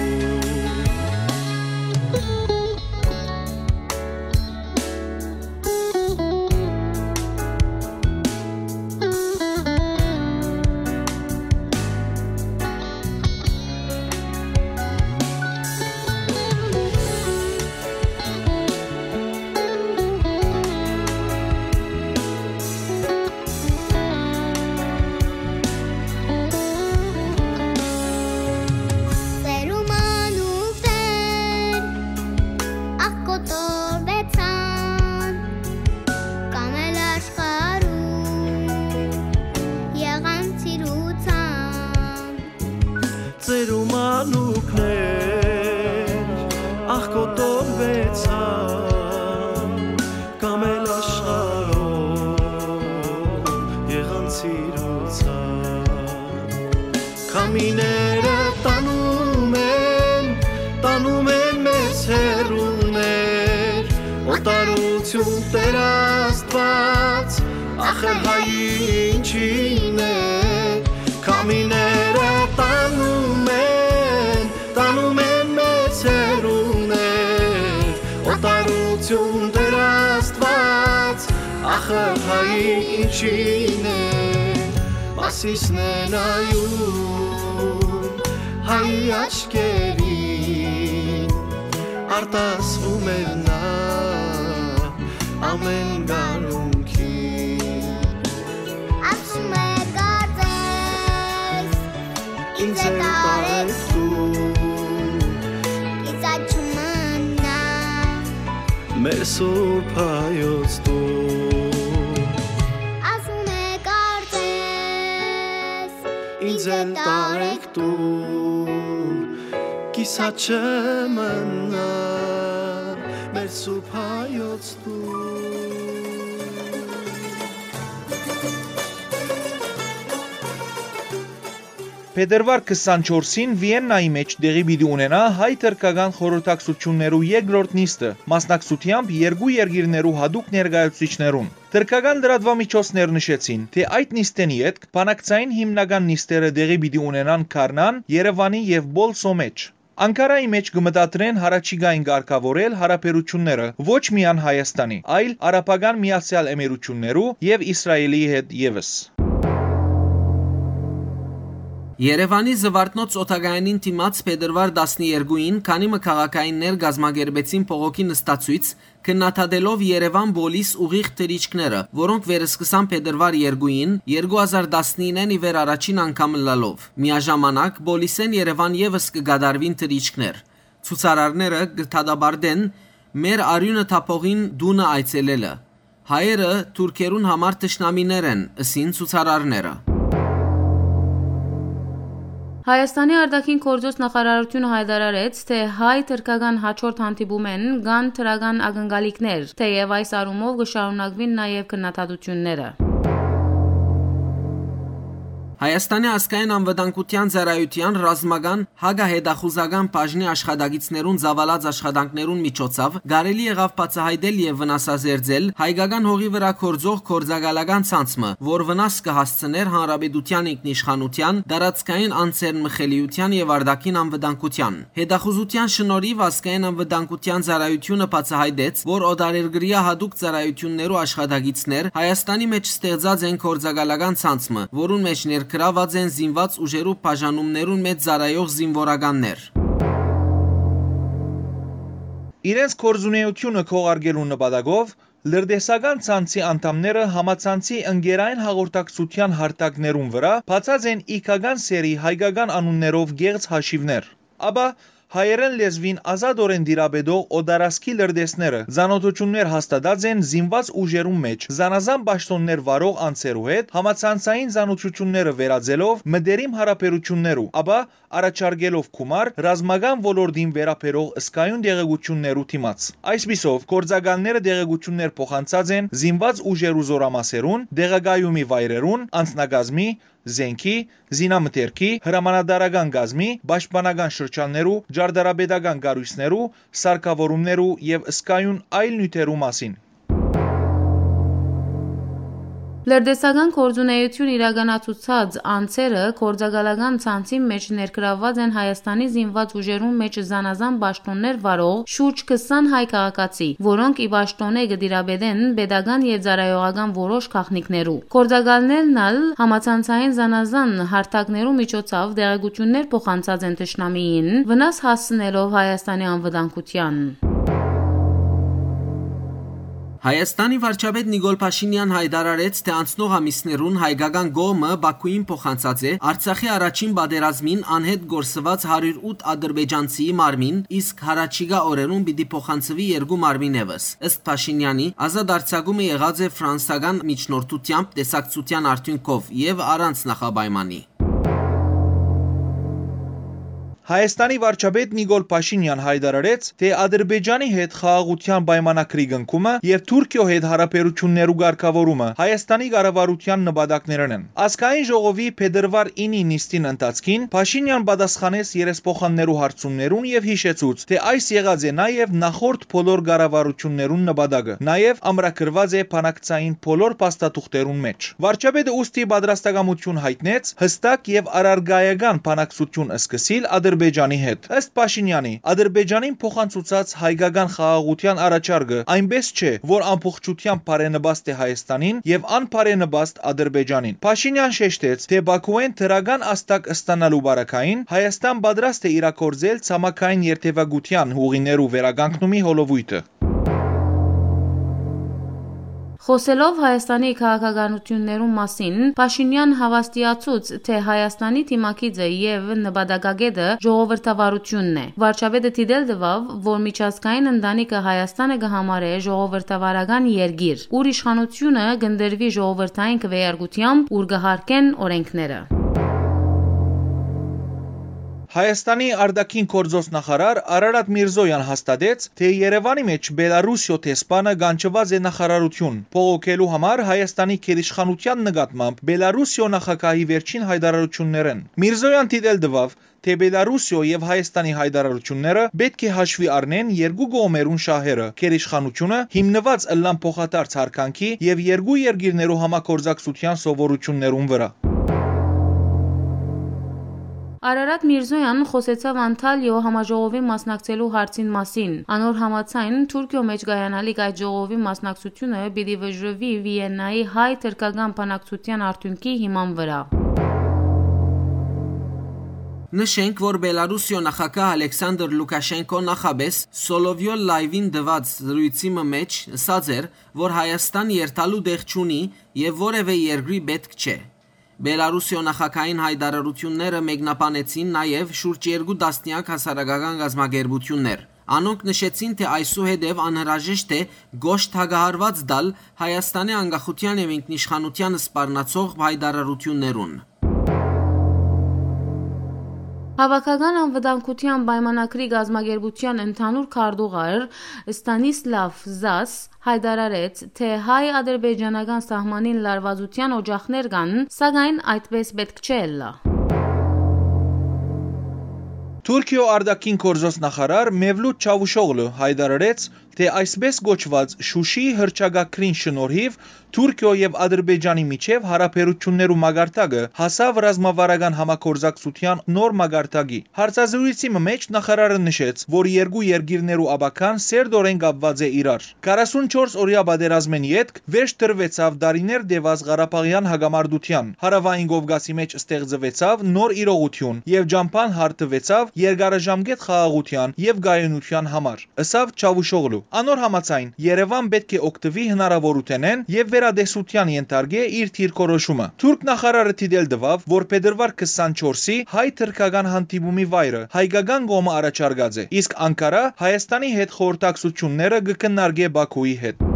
Սերու մանուկներ աղ կոտորվեցան, կամ էլ աշխարհում եղան սիրուցան։ Սերու մանուկներ աղ կոտորվեցան, կամ էլ աշխարհով եղան սիրուցան։ Քամիները տանում են, տանում են մեզ հեռուներ, օտարություն Տեր Աստված, ախր հայ ինչին է։ Քամիները տանում են, տանում են մեզ հեռուներ, օտարություն Տեր Աստված, ախր հայ ինչին է։ Մովսիսն է նայում հայ աչքերին, արտասվում է նա ամեն գարունքին։ Ասում է, կարծես, ինձ է տարեկտուն, կիսատ չմնայ մեր սուրբ հայոց տուն։ Ասում է, կարծես, ինձ է տարեկտուն, կիսատ չմնայ մեր սուրբ հայոց տուն։ Փետրուար քսանչորսին Վիեննայի մէջ տեղի պիտի ունենայ հայ-թրքական խորհրդակցութիւններու երկրորդ նիստը, մասնակցութեամբ երկու երկիրներու յատուկ ներկայացուցիչներուն։ Թրքական լրատուամիջոցներ նշեցին, թէ այդ նիստէն ետք բանակցային հիմնական նիստերը տեղի պիտի ունենան Գառնան, Երեւանի եւ Պոլսոյ մէջ։ Անկարայի մէջ կը մտադրեն յառաջիկային կարգաւորել յարաբերութիւնները ոչ միայն Հայաստանի, այլ Արաբական Միացեալ Էմիրութիւններու եւ Իսրայէլի հետ եւս։ Երեւանի Զուարթնոց օդակայանին դիմաց փետրուար տասներկուին քանի մը քաղաքայիններ կազմակերպեցին փողոքի նստացոյց, քննադատելով Երեւան Պոլիս ուղիղ թռիչքները, որոնք վերսկսան փետրուար երկուին, երկու հազար տասնիննեն ի վեր առաջին անգամ ըլլալով։ Միաժամանակ, Պոլիսէն Երեւան եւս կը կատարուին թռիչքներ։ Ցուցարարները կը դատապարտեն մեր արիւնը թափողին տունը այցելելը։ Հայերը թուրքերուն համար թշնամիներ են, ըսին ցուցարարները։ Հայաստանի արտաքին գործոց նախարարությունը հայտարարեց, թէ հայ-թրքական հաջորդ հանդիպումէն կան դրական ակնկալիքներ, թէեւ այս առումով կը շարունակուին նաեւ քննադատութիւնները։ Հայաստանի ազգային անվտանգութեան ծառայութեան ռազմական հակահետախուզական բաժնի աշխատակիցներուն ծաւալած աշխատանքներուն միջոցաւ կարելի եղաւ բացայայտել եւ վնասազերծել հայկական հողի վրայ գործող գործակալական ցանց մը, որ վնաս կը հասցնէր հանրապետութեան ինքնիշխանութեան, տարածքային անձեռնմխելիութեան եւ արտաքին անվտանգութեան։ Հետախուզութեան շնորհիւ ազգային անվտանգութեան ծառայութիւնը բացայայտեց, որ օտարերկրեայ յատուկ ծառայութիւններու աշխատակիցներ Հայաստանի մէջ ստեղծած են գործակալական ցանց մը, որուն մէջ ներգրաւած են զինուած ուժերու բաժանումներուն մէջ ծառայող զինուորականներ։ Իրենց գործունեութիւնը քողարկելու նպատակով լրտեսական ցանցի անդամները համացանցի ընկերային հաղորդակցութեան հարթակներուն վրայ բացած են իգական սեռի հայկական անուններով կեղծ հաշիւներ։ Ապա հայերէն լեզուին ազատօրէն տիրապետող օտարազգի լրտեսները ծանօթութիւններ հաստատած են զինուած ուժերուն մէջ զանազան պաշտօններ վարող անձերու հետ համացանցային ծանօթութիւնները վերածելով մտերիմ յարաբերութիւններու, ապա առաջարկելով գումար ռազմական ոլորտին վերաբերող զգայուն տեղեկութիւններու դիմաց։ Այսպիսով, գործակալները տեղեկութիւններ փոխանցած են զինուած ուժերու զօրամասերուն, տեղակայումի վայրերուն, անձնակազմի, զէնքի, զինամթերքի, հրամանատարական կազմի, պաշտպանական շրջաններու, ճարտարապետական կառոյցներու, սարքաւորումներու եւ զգայուն այլ նիւթերու մասին։ Լրտեսական գործունեութիւն իրականացուցած անձերը գործակալական ցանցին մէջ ներգրաւուած են Հայաստանի զինուած ուժերուն մէջ զանազան պաշտօններ վարող շուրջ քսան հայ քաղաքացի, որոնք ի պաշտօնէ կը տիրապետեն պետական եւ ծառայողական որոշ գաղտնիքներու։ Գործակալներն ալ համացանցային զանազան հարթակներու միջոցով տեղեկութիւններ փոխանցած են թշնամիին, վնաս հասցնելով Հայաստանի անվտանգութեան։ Հայաստանի վարչապետ Նիկոլ Փաշինեան հայտարարեց, թէ անցնող ամիսներուն հայկական կողմը Բաքուին փոխանցած է Արցախի առաջին պատերազմին անհետ կորսուած հարիւր ութ ադրբեջանցիի մարմին, իսկ հառաջիկայ օրերուն պիտի փոխանցուի երկու մարմին եւս։ Ըստ Փաշինեանի, ազատ արձակումը եղած է ֆրանսական միջնորդութեամբ տեսակցութեան արդիւնքով եւ առանց նախապայմանի։ Հայաստանի վարչապետ Նիկոլ Փաշինեան հայտարարեց, թէ Ադրբեջանի հետ խաղաղութեան պայմանագրի կնքումը եւ Թուրքիոյ հետ յարաբերութիւններու կարգաւորումը Հայաստանի կառավարութեան նպատակներէն են։ Ազգային ժողովի փետրուար ինի նիստին ընթացքին Փաշինեան պատասխանեց երեսփոխաններու հարցումներուն եւ յիշեցուց, թէ այս եղած է նաեւ նախորդ բոլոր կառավարութիւններուն նպատակը, նաեւ ամրագրուած է բանակցային բոլոր փաստաթուղթերուն մէջ։ Վարչապետը ուստի պատրաստակամութիւն յայտնեց յստակ եւ առարկայական բանակցութիւն սկսիլ Ադրբեջանի հետ։ Ըստ Փաշինեանի, Ադրբեջանին փոխանցուցած հայկական խաղաղութեան առաջարկը այնպէս չէ, որ ամբողջութեամբ բարենպաստ է Հայաստանին եւ անբարենպաստ Ադրբեջանին։ Փաշինեան շեշտեց, թէ Բաքուէն դրական ազդակ ստանալու պարագային Հայաստան պատրաստ է իրագործել ցամաքային երթեւակութեան ուղիներու վերականգնումի հոլովոյթը։ Խոսելով Հայաստանի քաղաքականություններուն մասին, Փաշինեան հաւաստիացուց, թէ Հայաստանի դիմագիծը եւ նպատակագետը ժողովրդավարությունն է։ Վարչապետը դիտել տուաւ, որ միջազգային ընտանիքը Հայաստանը կը համարէ ժողովրդավարական երկիր, ուր իշխանությունը կ'ընտրուի ժողովրդային քվեարկությամբ, ուր կը հարկեն օրենքները։ Հայաստանի արտաքին գործոց նախարար Արարատ Միրզոյան հաստատեց, թէ Երեւանի մէջ Բելարուսիոյ դեսպանը կանչուած է նախարարութիւն, բողոքելու համար Հայաստանի գերիշխանութեան նկատմամբ Բելարուսիոյ նախագահի վերջին հայտարարություններէն։ Միրզոյան դիտել տուաւ, թէ Բելարուսիոյ եւ Հայաստանի հայտարարությունները պէտք է հաշուի առնեն երկու կողմերուն շահերը, գերիշխանությունը, հիմնուած ըլլան փոխադարձ յարգանքի եւ երկու երկիրներու համագործակցութեան սովորութիւններուն վրայ։ Արարատ Միրզոյան խօսեցաւ Անթալիոյ համաժողովին մասնակցելու հարցին մասին։ Անոր համաձայն, Թուրքիոյ մէջ կայանալիք այդ ժողովին մասնակցությունը պիտի վճռուի Վիեննայի հայ-թրքական բանակցութեան արդիւնքի հիման վրայ։ Նշենք, որ Բելարուսիոյ նախագահ Ալեքսանդր Լուքաշենկո նախապէս Սոլովյո լայվին տուած զրոյցի մը մէջ ըսած էր, որ Հայաստան երթալու տեղ չունի եւ որեւէ երկրի պէտք չէ։ Բելարուսիոյ նախագահին յայտարարութիւնները մեկնաբանեցին նաեւ շուրջ երկու տասնեակ հասարակական կազմակերպութիւններ։ Անոնք նշեցին, թէ այսուհետեւ անհրաժեշտ է կոշտ հակահարուած տալ Հայաստանի անկախութեան եւ ինքնիշխանութեան սպառնացող յայտարարութիւններուն։ Հաւաքական անվտանգութեան պայմանագրի կազմակերպութեան ընդհանուր քարտուղար Ստանիսլաւ Զաս յայտարարեց, թէ հայ-ադրբեջանական սահմանին լարուածութեան օճախներ կան, սակայն այդպէս պէտք չէ ըլլայ։ Թուրքիոյ արտաքին գործոց նախարար Մևլութ Չավուշօղլու յայտարարեց, թէ այսպէս կոչուած Շուշիի հռչակագրին շնորհիւ Թուրքիոյ եւ Ադրբեջանի միջեւ յարաբերութիւններու մակարդակը հասաւ ռազմավարական համագործակցութեան նոր մակարդակի։ Հարցազրոյցի մը մէջ նախարարը նշեց, որ երկու երկիրներու ապագան սերտօրէն կապուած է իրար։ Քառասունչորս օրեայ պատերազմէն ետք վերջ դրուեցաւ տարիներ տեւած Ղարաբաղեան հակամարտութեան։ Հարաւային Կովկասի մէջ ստեղծուեցաւ նոր իրողութիւն եւ ճամբան հարթուեցաւ երկարաժամկետ խաղաղութեան եւ կայունութեան համար, ըսաւ Չավուշօղլու։ Անոր համաձայն, Երեւան պէտք է օգտուի հնարաւորութենէն եւ վերատեսութեան ենթարկէ իր դիրքորոշումը։ Թուրք նախարարը դիտել տուաւ, որ փետրուար քսանչորսի հայ-թրքական հանդիպումի վայրը հայկական կողմը առաջարկած է, իսկ Անկարա Հայաստանի հետ խորհրդակցութիւնները կը քննարկէ Բաքուի հետ։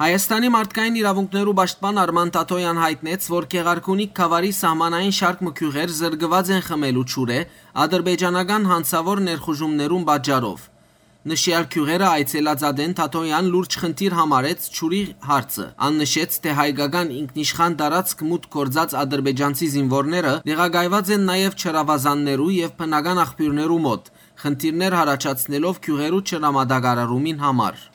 Հայաստանի մարդկային իրաւունքներու պաշտպան Արման Թաթոյան յայտնեց, որ Գեղարքունիք գաւառի սահմանային շարք մը գիւղեր զրկուած են խմելու ջուրէ ադրբեջանական հանցաւոր ներխուժումներուն պատճառով։ Նշեալ գիւղերը այցելած ատեն Թաթոյան լուրջ խնդիր համարեց ջուրի հարցը։ Ան նշեց, թէ հայկական ինքնիշխան տարածք մուտք գործած ադրբեջանցի զինուորները տեղակայուած են նաեւ ջրաւազաններու եւ բնական աղբիւրներու մօտ, խնդիրներ յառաջացնելով գիւղերու ջրամատակարարումին համար։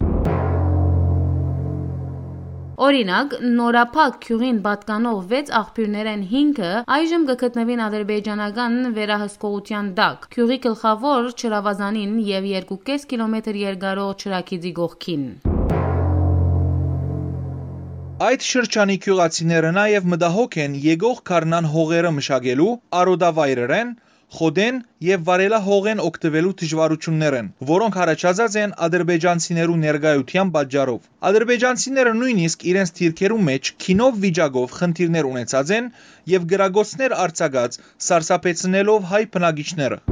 Օրինակ, Նորափակ գիւղին պատկանող վեց աղբիւրներէն հինգը այժմ կը գտնուին ադրբեջանական վերահսկողութեան տակ, գիւղի գլխաւոր ջրաւազանին եւ երկու կէս կիլոմետր երկարող ջրագիծի կողքին։ Այդ շրջանի գիւղացիները նաեւ մտահոգ են եկող գարնան հողերը մշակելու, արոտավայրերէն, խոտէն եւ վարելահողէն օգտուելու դժուարութիւններէն, որոնք յառաջացած են ադրբեջանցիներու ներկայութեան պատճառով։ Ադրբեջանցիները նոյնիսկ իրենց դիրքերու մէջ գինով վիճակով խնդիրներ ունեցած են եւ կրակոցներ արձակած, սարսափեցնելով հայ բնակիչները։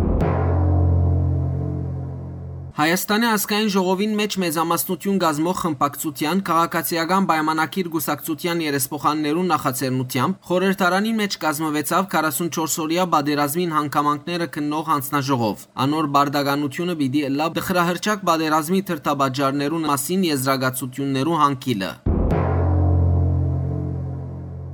Հայաստանի ազգային ժողովին մէջ մեծամասնութիւն կազմող խմբակցութեան քաղաքացիական պայմանագիր կուսակցութեան երեսփոխաններուն նախաձեռնութեամբ խորհրդարանին մէջ կազմուեցաւ քառասունչորս օրեայ պատերազմին հանգամանքները քննող յանձնաժողով։ Անոր պարտականութիւնը պիտի ըլլայ տխրահռչակ պատերազմի դրդապատճառներուն մասին եզրակացութիւններու հանգիլը։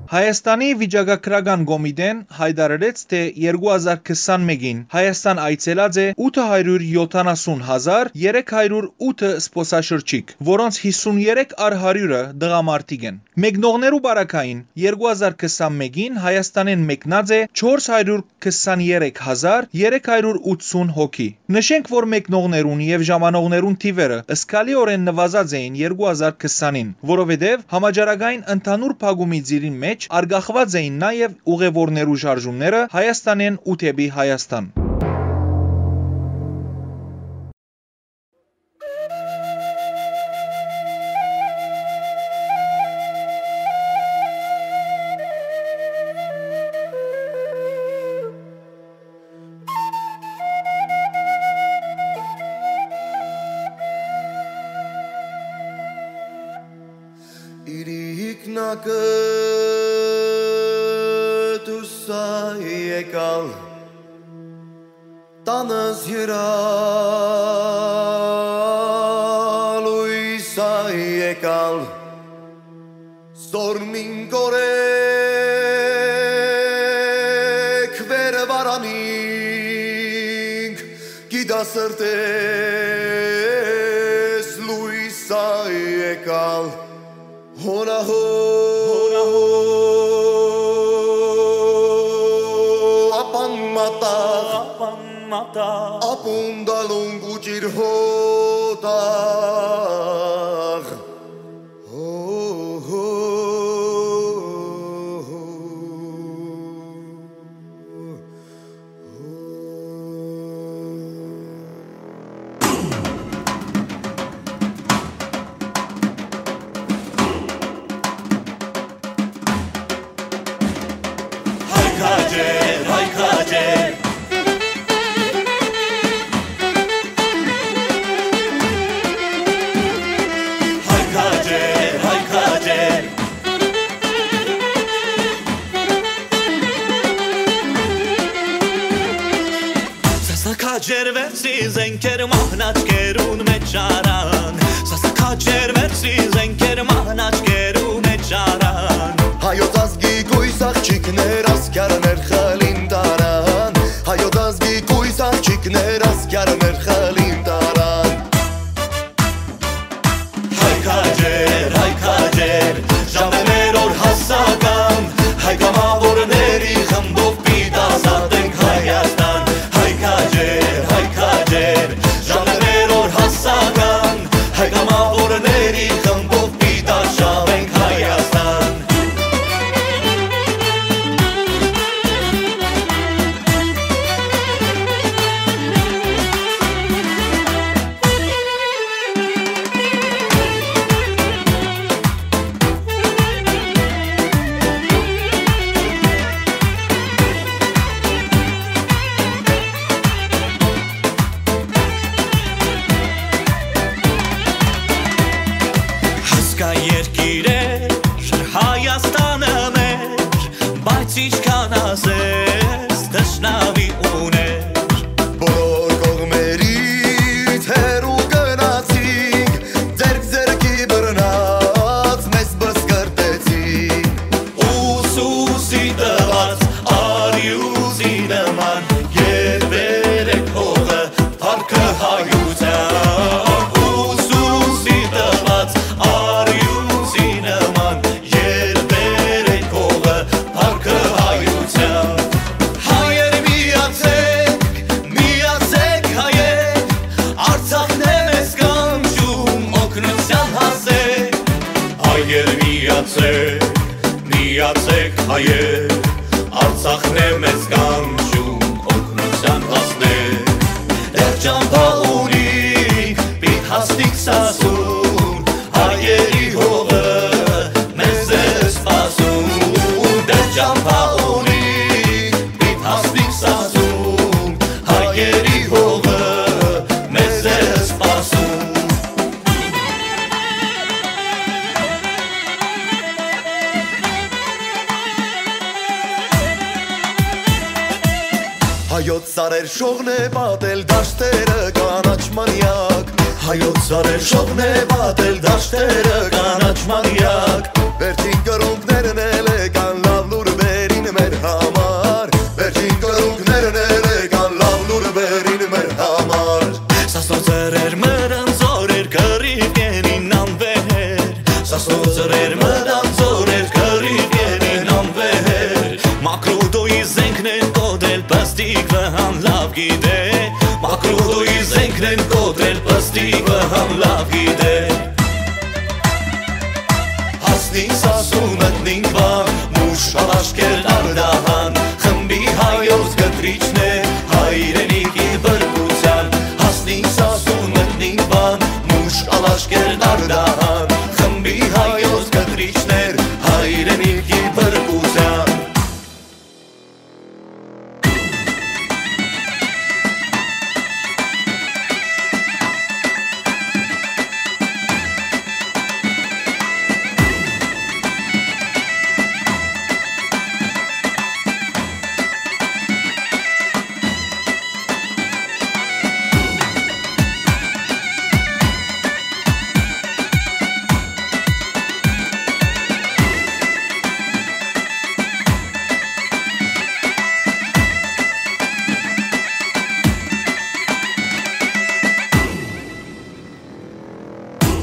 Հայաստանի վիճակագրական կոմիտեն յայտարարեց, թէ երկու հազար քսանմէկին Հայաստան այցելած է ութը հարիւր յոթանասուն հազար երեք հարիւր ութը զբօսաշրջիկ, որոնց հիսուն երեք առ հարիւրը տղամարդիկ են։ Մեկնողներու պարագային երկու հազար քսանմէկին Հայաստանէն մեկնած է չորս հարիւր քսաներեք հազար երեք հարիւր ութսուն հոգի։ Նշենք, որ մեկնողներուն եւ ժամանողներուն թիվերը զգալիօրէն նուազած էին երկու հազար քսանին, որովհետեւ համաճարակային ընդհանուր փակումի ծիրին մէջ արգախուած էին նաեւ ուղեւորներու շարժումները Հայաստանէն ու դէպի Հայաստան։ Իրիկնակը դուսա եկալ, տանս յրալույս ա եկալ, զորմին կորեք վեր վարանինք, գիտասրտես լույս ա եկալ, հոնահո, հոնահո, ապան մատաղ, ապան մատաղ, ապուն դալուն կուճիր հոտաղ։ Հո, հո, հո, հո։ Զենքեր մահնաճկերուն մէջ առան, սասքաճեր մերսի զենքեր մահնաճկերուն մէջ առան։ Հայոց ազգի կոյս աղջիկներ ասկիարներ խլին տարան, հայոց ազգի կոյս աղջիկներ ասկիարներ խլին տարան։ Հայ քաջեր, հայ քաջեր, ժամերոր հասական, հայ կամավորների խմբով պիտի ազատենք Հայաստան։ Հայ քաջեր, հայ քաջեր, ժամերոր հասական, հայ կամավորների խմբով պիտի արշաւենք Հայաստան։ Հասկայ երկիրեր, Հայաստանը մեր, բայց ինչքան ասես, թշնամի ուներ։ Բոլոր կողմերից հեռու գնացինք, ձեռք ձեռքի բռնած մեզ բսկրտեցին։ Ուսուսի տված արիուսի նման գերբեր է փողը, փառքը հայության։ Ուսուսի տված արիուսի նման գերբեր է փողը, փառքը հայության։ Հայեր միացեք, միացեք հայեր, Արցախն է մեզ կանչում օգնության հասել։ Հայեր միացեք, միացեք հայեր, Արցախն է մեզ կանչում օգնության հասնել։ Դեռ ճամփա ունինք, պիտի հասնենք Սասուն, հայերի հողը մեզ է սպասում։ Դեռ ճամփա ունինք, պիտի հասնենք Սասուն, հայերի հողը մեզ է սպասում։ Հայոց սարեր շողն է պատել դաշտերը կանաչ մանյակ։ Հայոց սարեր շողն է պատել դաշտերը կանաչ մանյակ։ Վերջին կռունկներն էլ եկան լաւ լուրվերին մեր համար։ Վերջին կռունկներն էլ եկան լաւ լուրվերին մեր համար։ Սասնոց սրեր մտան զօրեր կռիվ կենին անվեհեր։ Սասնոց սրեր մտան զօրեր կռիվ կենին անվեհեր։ Մակրուտոյի զենքն են կոտրել պստիկ վհան լաւ գիտե։ Մակրուտոյի զենքն են կոտրել պստիկ վհան լաւ գիտե։ Հասնին Սասուն մտնին Վան, մուշ ալաշկերն Արդահան, խմբի հայոց կտրիչն է հայրենիքի բրկության։ Հասնին Սասուն մտնին Վան, մուշ ալաշկերն Արդահան, խմբի հայոց կտրիչներ հայրենիքի բրկության։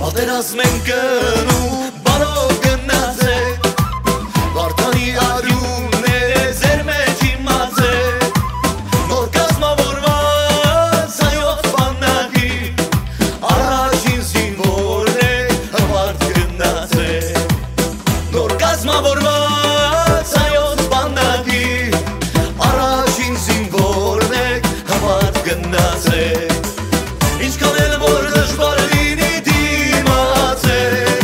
Պատերազմ են գնում, բարով գնացեք։ Վարդանի արիունն է ձեր մեջ իմացեք։ Նոր կազմավորված հայոց բանակի առաջին զինվորն է, հպարտ գնացեք։ Նոր կազմավորված հայոց բանակի առաջին զինվորն եք, հպարտ գնացեք։ Ինչքան էլ որ դժվար լինի, դիմացեք։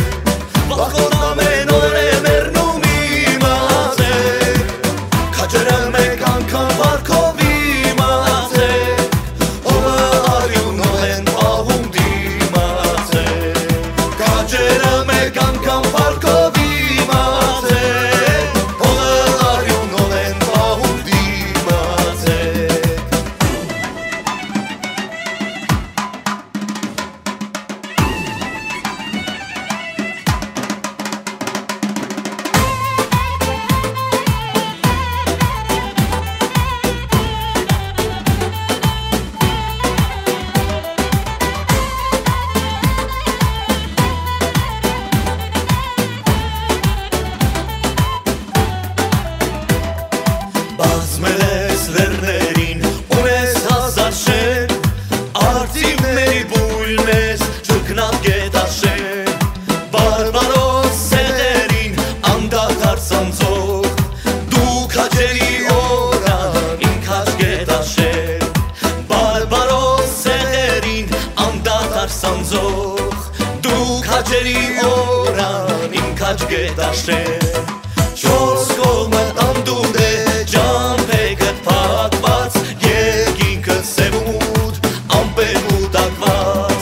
Զող, դու քաջերի օրան իմ քաջ կը տաշեն։ Չորս կողմը տանտուր է, ճամբեքդ փակված, երկինքը սեւ ու մութ, ամպեր կուտակված։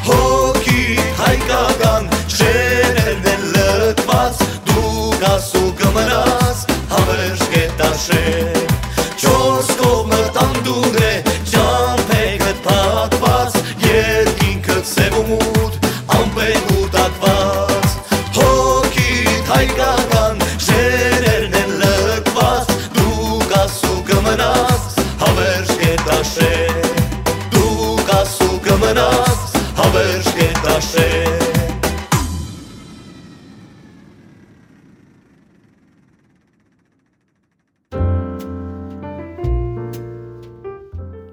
Հոգիդ հայկական շեներն են լքված, դու կաս ու կմնաս, հավերժ կը տաշեն։ Չորս կողմը տանտուր է, ճամբեքդ փակված, երկինքը սեւ ու մութ, ամպեր կուտակված, հոգիդ հայկական շեներն են լքված, դու կաս ու կմնաս, հավերժ կը տաշեն, դու կաս ու կմնաս, հավերժ կը տաշեն։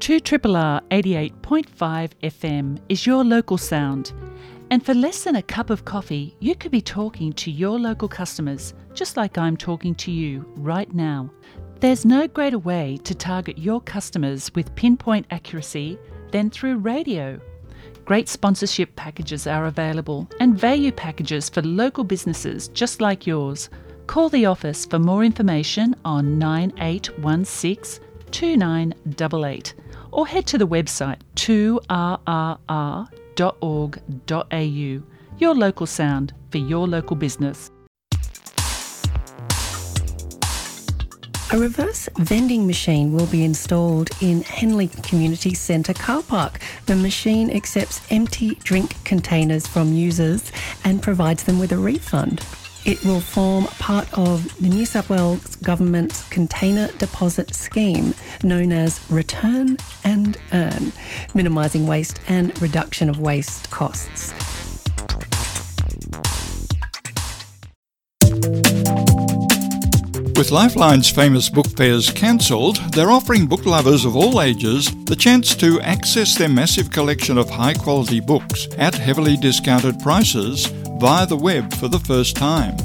Two triple R eighty-eight point five F M is your local sound. And for less than a cup of coffee, you could be talking to your local customers, just like I'm talking to you right now. There's no greater way to target your customers with pinpoint accuracy than through radio. Great sponsorship packages are available and value packages for local businesses just like yours. Call the office for more information on nine eight one six two nine double eight or head to the website two R R R dot org dot A U. Your local sound for your local business. A reverse vending machine will be installed in Henley Community Centre car park. The machine accepts empty drink containers from users and provides them with a refund. It will form part of the New South Wales Government's Container Deposit Scheme, known as Return and Earn, minimising waste and reduction of waste costs. With Lifeline's famous book fairs cancelled, they're offering book lovers of all ages the chance to access their massive collection of high quality books at heavily discounted prices via the web for the first time.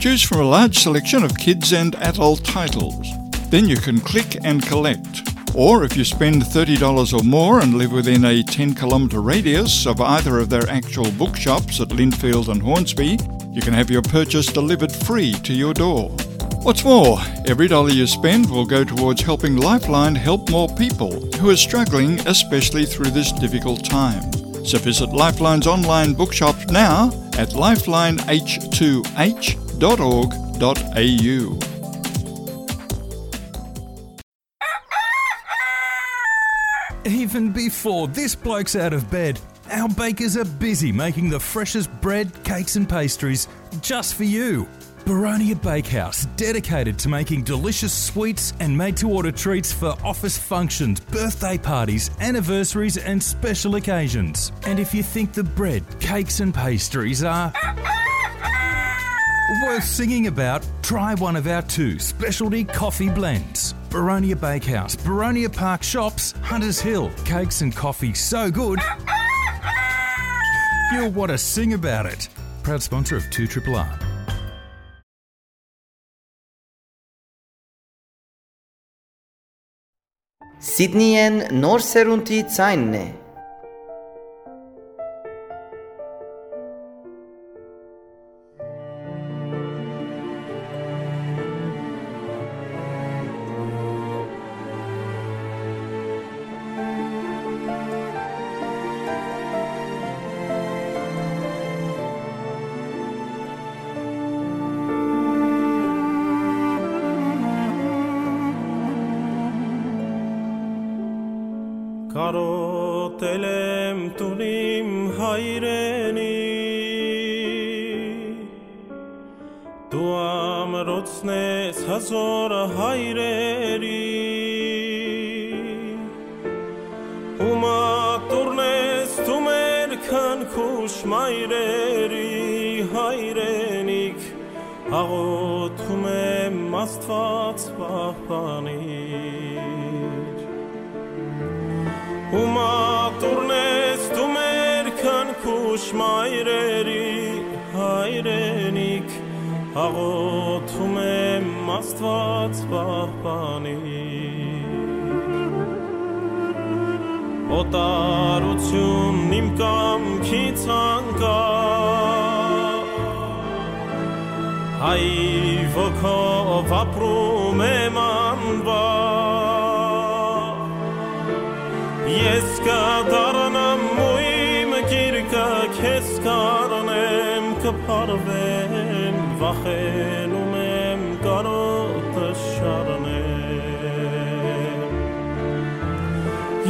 Choose from a large selection of kids and adult titles. Then you can click and collect. Or if you spend thirty dollars or more and live within a ten kilometre radius of either of their actual bookshops at Lindfield and Hornsby, you can have your purchase delivered free to your door. What's more, every dollar you spend will go towards helping Lifeline help more people who are struggling, especially through this difficult time. So visit Lifeline's online bookshop now at lifeline h two h dot org dot a u. Even before this bloke's out of bed, our bakers are busy making the freshest bread, cakes, and pastries just for you. Baronia Bakehouse, dedicated to making delicious sweets and made to order treats for office functions, birthday parties, anniversaries, and special occasions. And if you think the bread, cakes, and pastries are worth singing about, try one of our two specialty coffee blends. Baronia Bakehouse, Baronia Park Shops, Hunters Hill. Cakes and coffee so good, you'll want to sing about it. Proud sponsor of two triple R. Սիդնիեն նոր սերունդի ձայնն է։ Կարոտել եմ տուն իմ հայրենի, դու ամրոցն ես հազոր հայրերի, ու մատուրն ես դու մեր քնքուշ մայրերի հայրենիք, աղոթում եմ Աստված պահպանիր։ Ու մատուրն ես դու մեր քնքուշ մայրերի հայրենիք, աղոթում եմ Աստված պահպանիր։ Օտարութիւնն իմ կամքից անկայ, հայ ոգով ապրում եմ անվայ։ Ես կդառնամ ու իմ գիրկը քեզ կառնեմ, կփարվեմ, վախենում եմ կարոտը շարնեմ։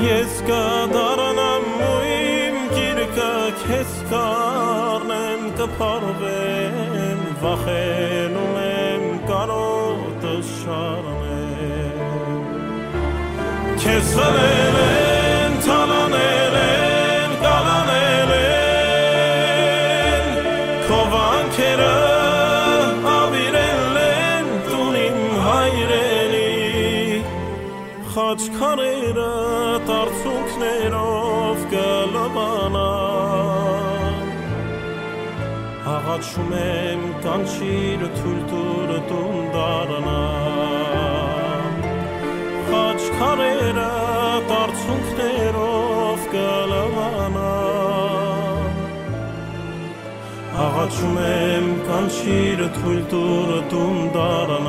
Ես կդառնամ ու իմ գիրկը քեզ կառնեմ, կփարվեմ, վախենում եմ կարոտը շարնեմ։ Քեզ խլել են, թալանել են, կալանել են, քո վանքերը աւիրել են տուն իմ հայրենի, խաչքարերը տարցունքներով կը լվանան։ Աղաչում եմ, կանչիր, թոյլ տուր տուն դառնամ, խաչքարերը տարցունքներով կը լվանան։ Աղաչում եմ, կանչիր, թոյլ տուր տուն դառնամ։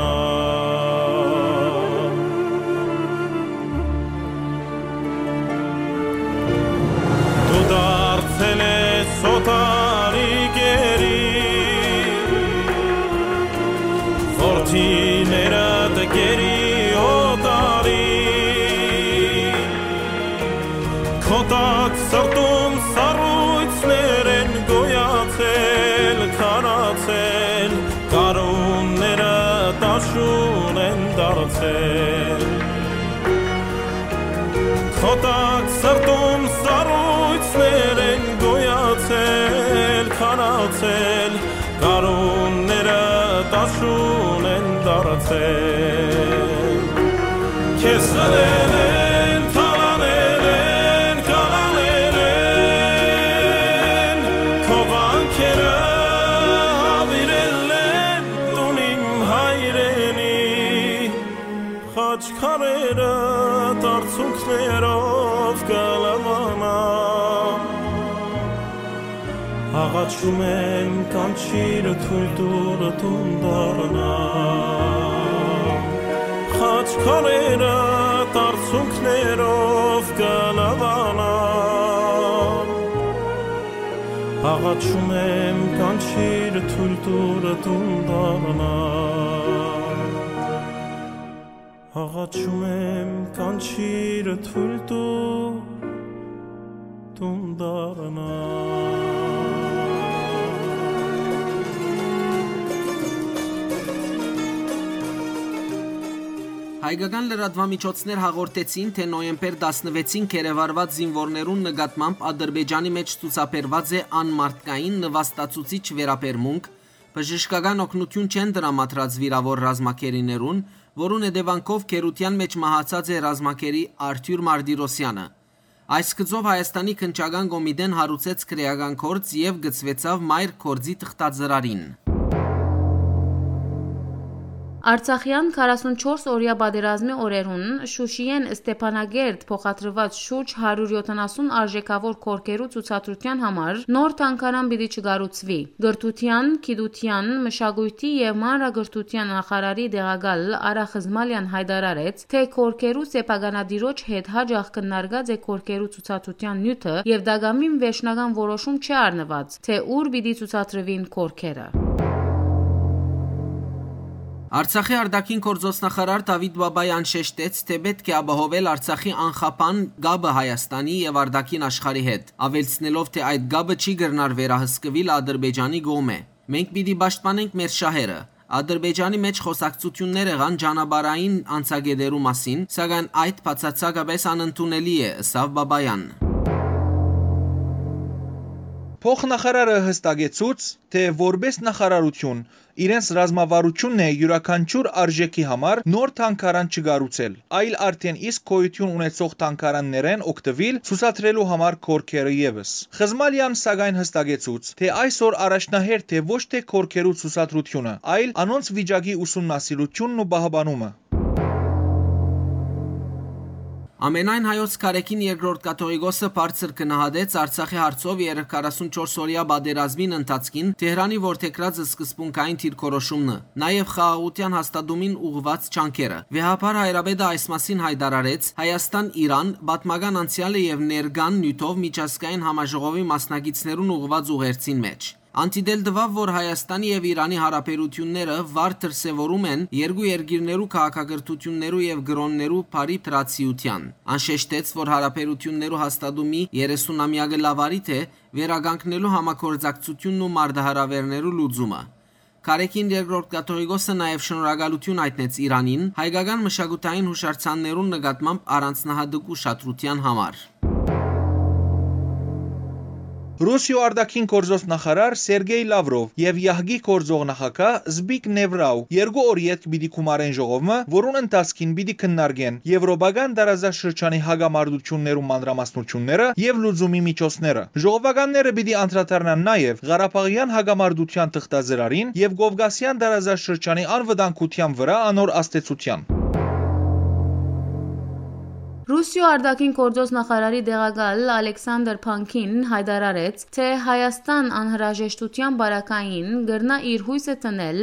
Դու դարձել ես օտարի գերի, որդիներդ գերի օտարի, քո տակ սրտում սառոյցներ են գոյացել, քարացել, գարունները տաշուն են դարձել։ Քո տակ սրտում սառոյցներ են գոյացել, քարացել, գարունները տաշուն են դարձել։ Քեզ խլել են, թալանել են, կալանել են, քո վանքերը աւիրել են տուն իմ հայրենի, խաչքարերը տարցունքներով կը լվանան։ Աղաչում եմ, կանչիր, թոյլ տուր տուն դառնամ, խաչքարերը տարցունքներով կը լվանան։ Աղաչում եմ, կանչիր, թոյլ տուր տուն դառնամ։ Աղաչում եմ, կանչիր, թոյլ տուր տուն դառնամ։ Հայկական լրատուամիջոցներ հաղորդեցին, թէ նոյեմբեր տասնվեցին գերեվարուած զինուորներուն նկատմամբ Ադրբեջանի մէջ ցուցաբերուած է անմարդկային նվաստացուցիչ վերաբերմունք, բժշկական օգնութիւն չեն տրամադրած վիրաւոր ռազմագերիներուն, որուն հետեւանքով գերութեան մէջ մահացած է ռազմագերի Արթիւր Մարտիրոսյանը։ Այս գծով Հայաստանի Քննչական կոմիտեն հարուցեց քրեական գործ եւ գծուեցաւ մայր գործի թղթածրարին։ Արցախեան քառասունչորս օրեայ պատերազմի օրերուն Շուշիէն Ստեփանագերդ փոխադրուած շուրջ հարիւր յոթանասուն արժէքաւոր գորգերու ցուցադրութեան համար նոր թանգարան պիտի չկառուցուի։ Կրթութեան, գիտութեան, մշակոյթի եւ մանրակրթութեան նախարարի տեղակալ Արա Խզմալեան յայտարարեց, թէ գորգերու սեփականատիրոջ հետ յաճախ քննարկած է գորգերու ցուցադրութեան նիւթը եւ տակամին վերջնական որոշում չի առնուած, թէ ուր պիտի ցուցադրուին գորգերը։ Արցախի արտաքին գործոստնախարար Դավիթ Բաբայան շեշտեց, թէ պէտք է ապահովել Արցախի անխափան կապը Հայաստանի եւ արտաքին աշխարհի հետ, աւելցնելով, թէ այդ կապը չի կրնար վերահսկուիլ Ադրբեջանի կողմէ։ Մենք պիտի պաշտպանենք մեր շահերը։ Ադրբեջանի մէջ խօսակցութիւններ եղան ճանապարհային անցակէտերու մասին, սակայն այդ բացարձակապէս անընդունելի է, ըսաւ Բաբայան։ Փոխնախարարը յստակեցուց, թէ որպէս նախարարութիւն իրենց ռազմավարութիւնն է յուրաքանչիւր արժէքի համար նոր թանգարան չկառուցել, այլ արդէն իսկ գոյութիւն ունեցող թանգարաններէն օգտուիլ ցուցադրելու համար գորգերը եւս։ Խզմալեան սակայն յստակեցուց, թէ այսօր առաջնահերթ է ոչ թէ գորգերու ցուցադրութիւնը, այլ անոնց վիճակի ուսումնասիրութիւնն ու պահպանումը։ Ամենայն հայոց Գարեգին Երկրորդ Կաթողիկոսը բարձր գնահատեց Արցախի հարցով երեք քառասունչորս օրեայ պատերազմին ընթացքին Թեհրանի որդեգրած սկզբունքային դիրքորոշումը, նաեւ խաղաղութեան հաստատումին ուղղուած ջանքերը։ Վեհափառ հայրապետը այս մասին յայտարարեց Հայաստան-Իրան պատմական անցեալը եւ ներկան նիւթով միջազգային համաժողովի մասնակիցներուն ուղղուած ուղերձին մէջ։ Ան դիտել տուաւ, որ Հայաստանի եւ Իրանի յարաբերութիւնները վառ դրսեւորում են երկու երկիրներու քաղաքակրթութիւններու եւ կրօններու բարի դրացիութեան։ Ան շեշտեց, որ յարաբերութիւններու հաստատումի երեսունամեակը լաւարի թէ վերականգնելու համագործակցութիւնն ու մարտահրաւերներու լուծումը։ Գարեգին Երկրորդ Կաթողիկոսը նաեւ շնորհակալութիւն յայտնեց Իրանին հայկական մշակութային յուշարձաններուն նկատմամբ առանձնահատուկ ուշադրութեան համար։ Ռուսիոյ արտաքին գործոց նախարար Սերգեյ Լավրով եւ յահկի գործող նախագահ Զպիկ Նեվրաու երկու օր ետք պիտի գումարեն ժողովը, որուն ընթացքին պիտի քննարկեն Եվրոպական տարածաշրջանի հակամարտութիւններու մանրամասնութիւնները եւ լուծումի միջոցները։ Ժողովականները պիտի անդրադառնան նաեւ Ղարաբաղեան հակամարտութեան թղթածրարին եւ Կովկասեան տարածաշրջանի անվտանգութեան վրայ անոր ազդեցութեան։ Ռուսիոյ արտաքին գործոց նախարարի տեղակալ Ալեքսանդր Փանքին յայտարարեց, թէ Հայաստան անհրաժեշտութեան պարագային կրնայ իր յոյսը դնել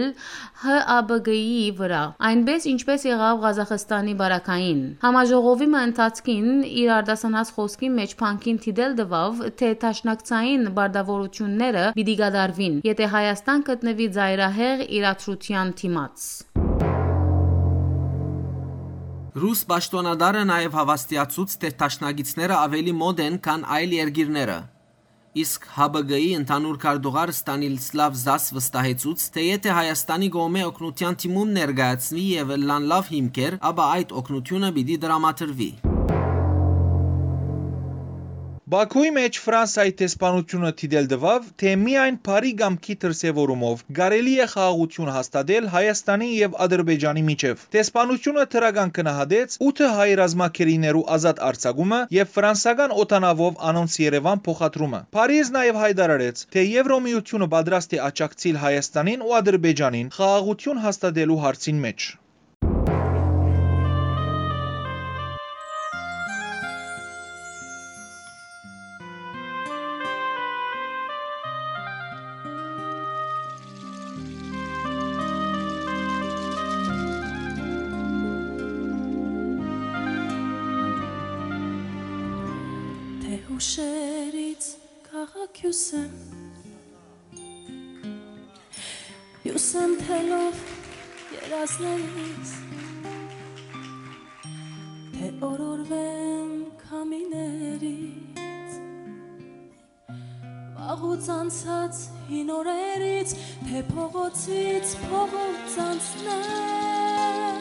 Հ Ա Բ Կ-ի վրայ, այնպէս ինչպէս եղաւ Ղազախստանի պարագային։ Համաժողովի մը ընթացքին իր արտասանած խօսքի մէջ Փանքին դիտել տուաւ, թէ դաշնակցային պարտաւորութիւնները պիտի կատարուին, եթէ Հայաստան գտնուի ծայրահեղ իրադրութեան դիմաց։ Ռուս պաշտօնատարը նաեւ հաւաստիացուց, թէ դաշնակիցները աւելի մօտ են, քան այլ երկիրները։ Իսկ Հ Բ Կ-ի ընդհանուր քարտուղար Ստանիլսլավ Զաս վստահեցուց, թէ եթէ Հայաստանի կողմէ օգնութեան դիմում ներկայացուի եւ ըլլան լաւ հիմքեր, ապա այդ օգնութիւնը պիտի տրամադրուի։ Բաքուի մէջ Ֆրանսայի դեսպանութիւնը դիտել տուաւ, թէ միայն բարի կամքի դրսեւորումով կարելի է խաղաղութիւն հաստատել Հայաստանի եւ Ադրբեջանի միջեւ։ Դեսպանութիւնը դրական գնահատեց ութը հայ ռազմագերիներու ազատ արձակումը եւ ֆրանսական օդանաւով անոնց Երեւան փոխադրումը։ Փարիզ նաեւ յայտարարեց, թէ Եվրոմիութիւնը պատրաստ է աջակցիլ Հայաստանին ու Ադրբեջանին խաղաղութիւն հաստատելու հարցին մէջ։ Թե հուշերից քաղաքյուս եմ, հյուս եմ թելով երազներիս, թե օրորվեմ քամիներից, վաղուց անցած հին օրերից, թե փողոցից փողոց անցնեմ,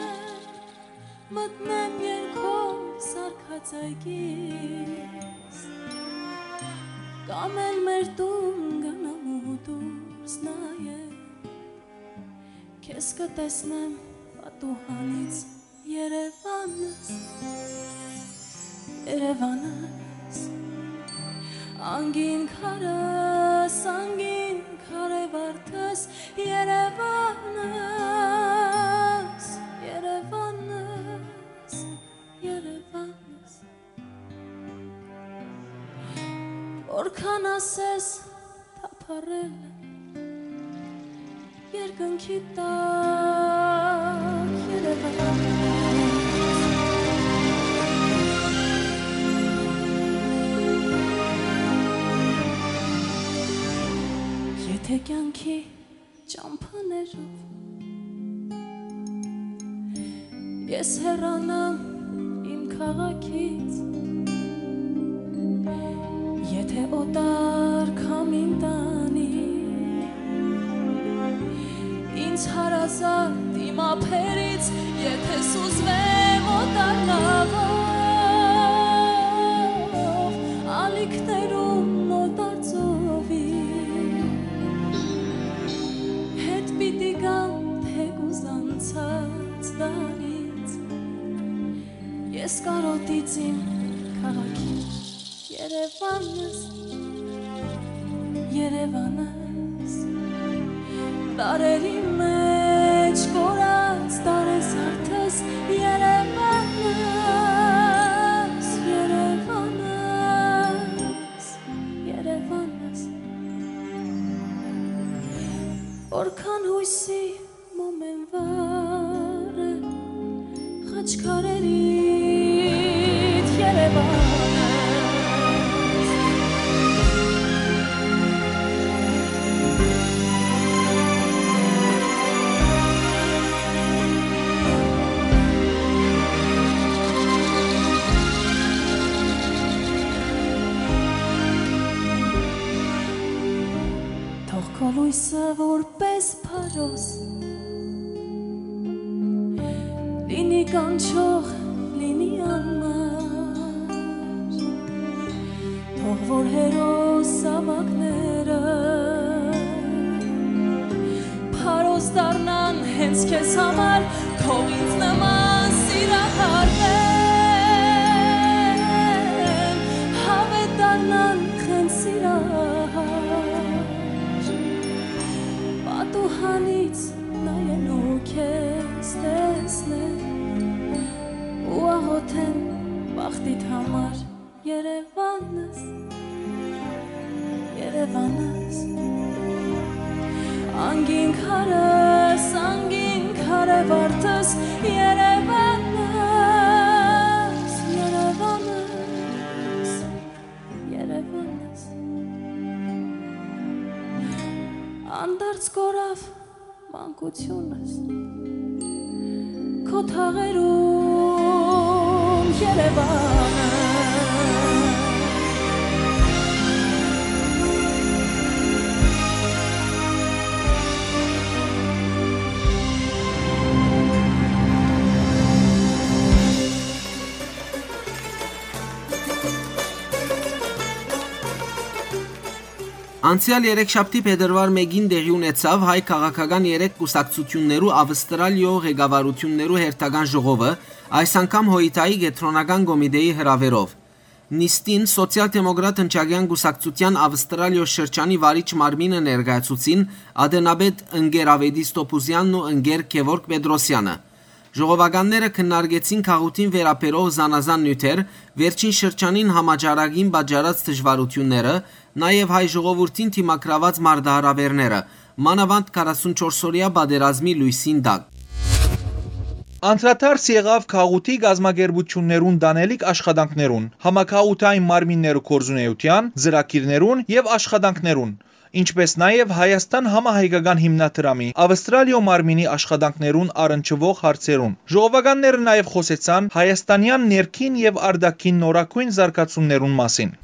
մտնեմ երկով սարկած այգիս, կամ էլ մեր տուն գնամ ու դուրս նայեմ, քեզ կտեսնեմ պատուհանից Երևանս, Երևանս, անգին քարս, անգին քարե վարդս, Երևանս, Երևանս, Երևանս։ Որքան ասես թափառել եմ երկնքի տակ Երևան։ Եթե կյանքի ճամփաներով ես հեռանամ իմ քաղաքից, եթե օտար քամին տանի ինձ հարազատ իմ ափերից, եթե սուզվեմ օտար նավով, ալիքներում օտար ծովի հետ պիտի գամ, թեկուզ անցած դարից։ Ես կարոտից իմ քաղաքին, Երևանս, Երևանս, դարերի մեջ կորած տարեզարդս, Երևանս, Որքան յոյսի մոմ են վառը, խաչքարերիդ Երեւանը։ Թող քո լոյսը որպէս փարոս լինի կանչող, լինի անմար, թող որ հերոս զաւակները փարոս դառնան հենց քեզ համար, թող ինձ նման սիրահարներ հավետ դառնան հենց սիրահար, պատուհանից նայելու քեզ տեսնեմ ու աղոթեմ բախտիդ համար, Երեւանս, Երեւանս, անգին քարս, անգին քարե վարդս, Երեւանս, Երեւանս, Երեւանս, անդարձ կորաւ մանկությունս քո թաղերուն, Երեւանը։ Անցեալ երեքշաբթի փետրուար մէկին տեղի ունեցաւ հայ քաղաքական երեք կուսակցութիւններու Ավստրալիոյ ղեկավարութիւններու հերթական ժողովը, այս անգամ Հոյթայի կեդրոնական կոմիտէի հրաւերով։ Նիստին Սոցիալ-դեմոկրատ ընչակեան կուսակցութեան Ավստրալիոյ շրջանի վարիչ մարմինը ներկայացուցին ատենապետ ընկեր Ավետիս Տոփուզեանն ու ընկեր Գեւորգ Պետրոսեանը։ Ժողովականները քննարկեցին գաղութին վերաբերող զանազան նիւթեր, վերջին շրջանին համաճարակին պատճառած դժուարութիւնները, նաեւ հայ ժողովուրդին դիմագրաւած մարտահրաւէրները, մանաւանդ քառասունչորս օրեայ պատերազմի լոյսին տակ։ Անդրադարձ եղաւ գաղութի կազմակերպութիւններուն տանելիք աշխատանքներուն, համագաղութային մարմիններու գործունէութեան, ծրագիրներուն եւ աշխատանքներուն, ինչպէս նաեւ Հայաստան համահայկական հիմնադրամի Ավստրալիոյ մարմինի աշխատանքներուն առնչուող հարցերուն։ Ժողովականները նաեւ խօսեցան հայաստանեան ներքին եւ արտաքին նորագոյն զարգացումներուն մասին։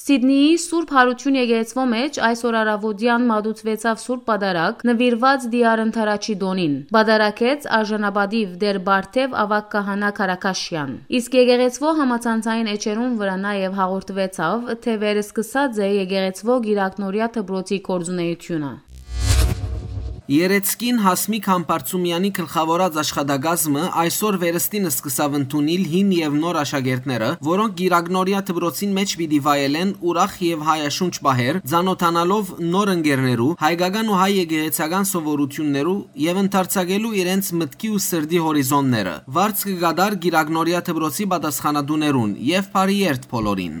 Սիդնիի Սուրբ Յարութիւն եկեղեցւոյ մէջ այսօր առաւօտեան մատուցուեցաւ Սուրբ Պատարագ, նուիրուած Տիար Ընդառաջի տօնին։ Պատարագեց արժանապատիւ Տէր Բարթեւ աւագ քահանայ Քարաքաշեան։ Իսկ եկեղեցւոյ համացանցային էջերուն վրայ նաեւ հաղորդուեցաւ, թէ վերսկսած է եկեղեցւոյ Կիրակնորեայ դպրոցի գործունէութիւնը։ Երեցկին Յասմիկ Համբարձումեանի գլխաւորած աշխատակազմը այսօր վերստին սկսաւ ընդունիլ հին եւ նոր աշակերտները, որոնք Կիրակնորեայ դպրոցին մէջ պիտի վայելեն ուրախ եւ հայաշունչ պահեր, ծանօթանալով նոր ընկերներու, հայկական ու հայ եկեղեցական սովորութիւններու եւ ընդարձակելու իրենց մտքի ու սրտի հորիզոնները։ Վարձ կը կատար Կիրակնորեայ դպրոցի պատասխանատուներուն եւ բարի երթ բոլորին։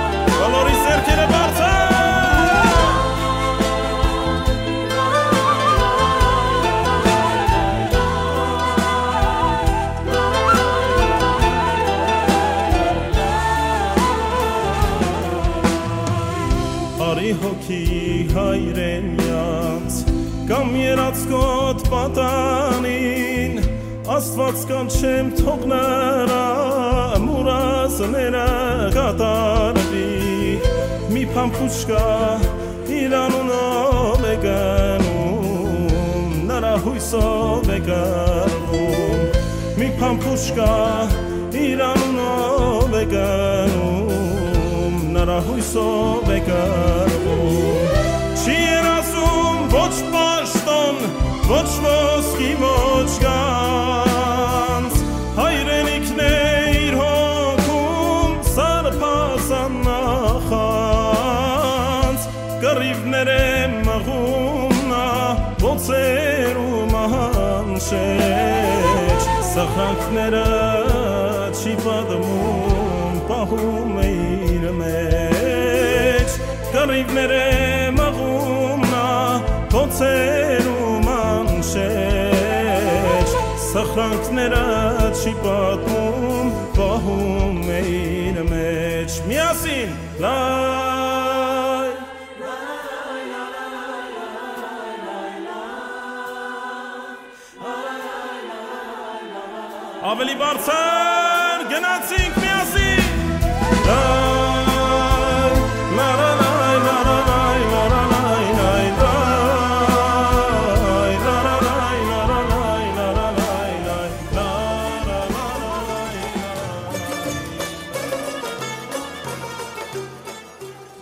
Արի հոգի հայրենեաց, կամ երածկոտ պատանին, Աստուած կանչեմ թող նրա մուրազները կատարուի, մի փամփուշկա իր անունով է գնում, նրա հոյսով է կռվում, մի փամփուշկա իր անունով է գնում, նրա հոյսով է կռվում։ Չի երազում ոչ պաշտոն, ոչ ոսկի, ոչ գանձ, հայրենիքն է իր հոգում սարբազան նախանձ, կռիւներ է մղում նա բոցերու մանչեջ, սխրանքները չի պատմում, պահում է իր մեջ, կռիւներ է մղում նա բոցերու մանչեջ, սխրանքները չի պատմում, պահում է իր մեջ։ Միասին, լայ։ Աւելի բարձր, գնացինք միասին։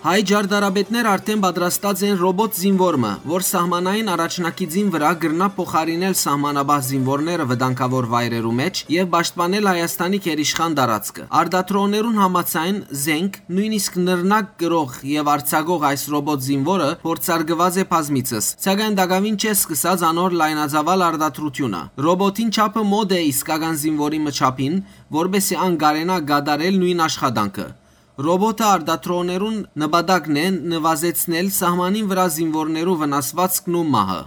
Հայ ճարտարապետներ արդէն պատրաստած են ռոբոտ զինուոր մը, որ սահմանային առաջնակիցին վրայ կրնայ փոխարինել սահմանապահ զինուորները վտանգաւոր վայրերու մէջ եւ պաշտպանել Հայաստանի գերիշխան տարածքը։ Արտադրողներուն համաձայն, զենք, նոյնիսկ նռնակ կրող եւ արձակող այս ռոբոտ զինուորը փորձարկուած է բազմիցս, սակայն տակաւին չէ սկսած անոր լայնածաւալ արտադրութիւնը։ Ռոբոտին չափը մոտ է իսկական զինուորի մը չափին, որպէսզի ան կարենայ կատարել նոյն աշխատանքը։ Ռոբոտը արտադրողներուն նպատակն է նուազեցնել սահմանին վրայ զինուորներու վնասուածքն ու մահը։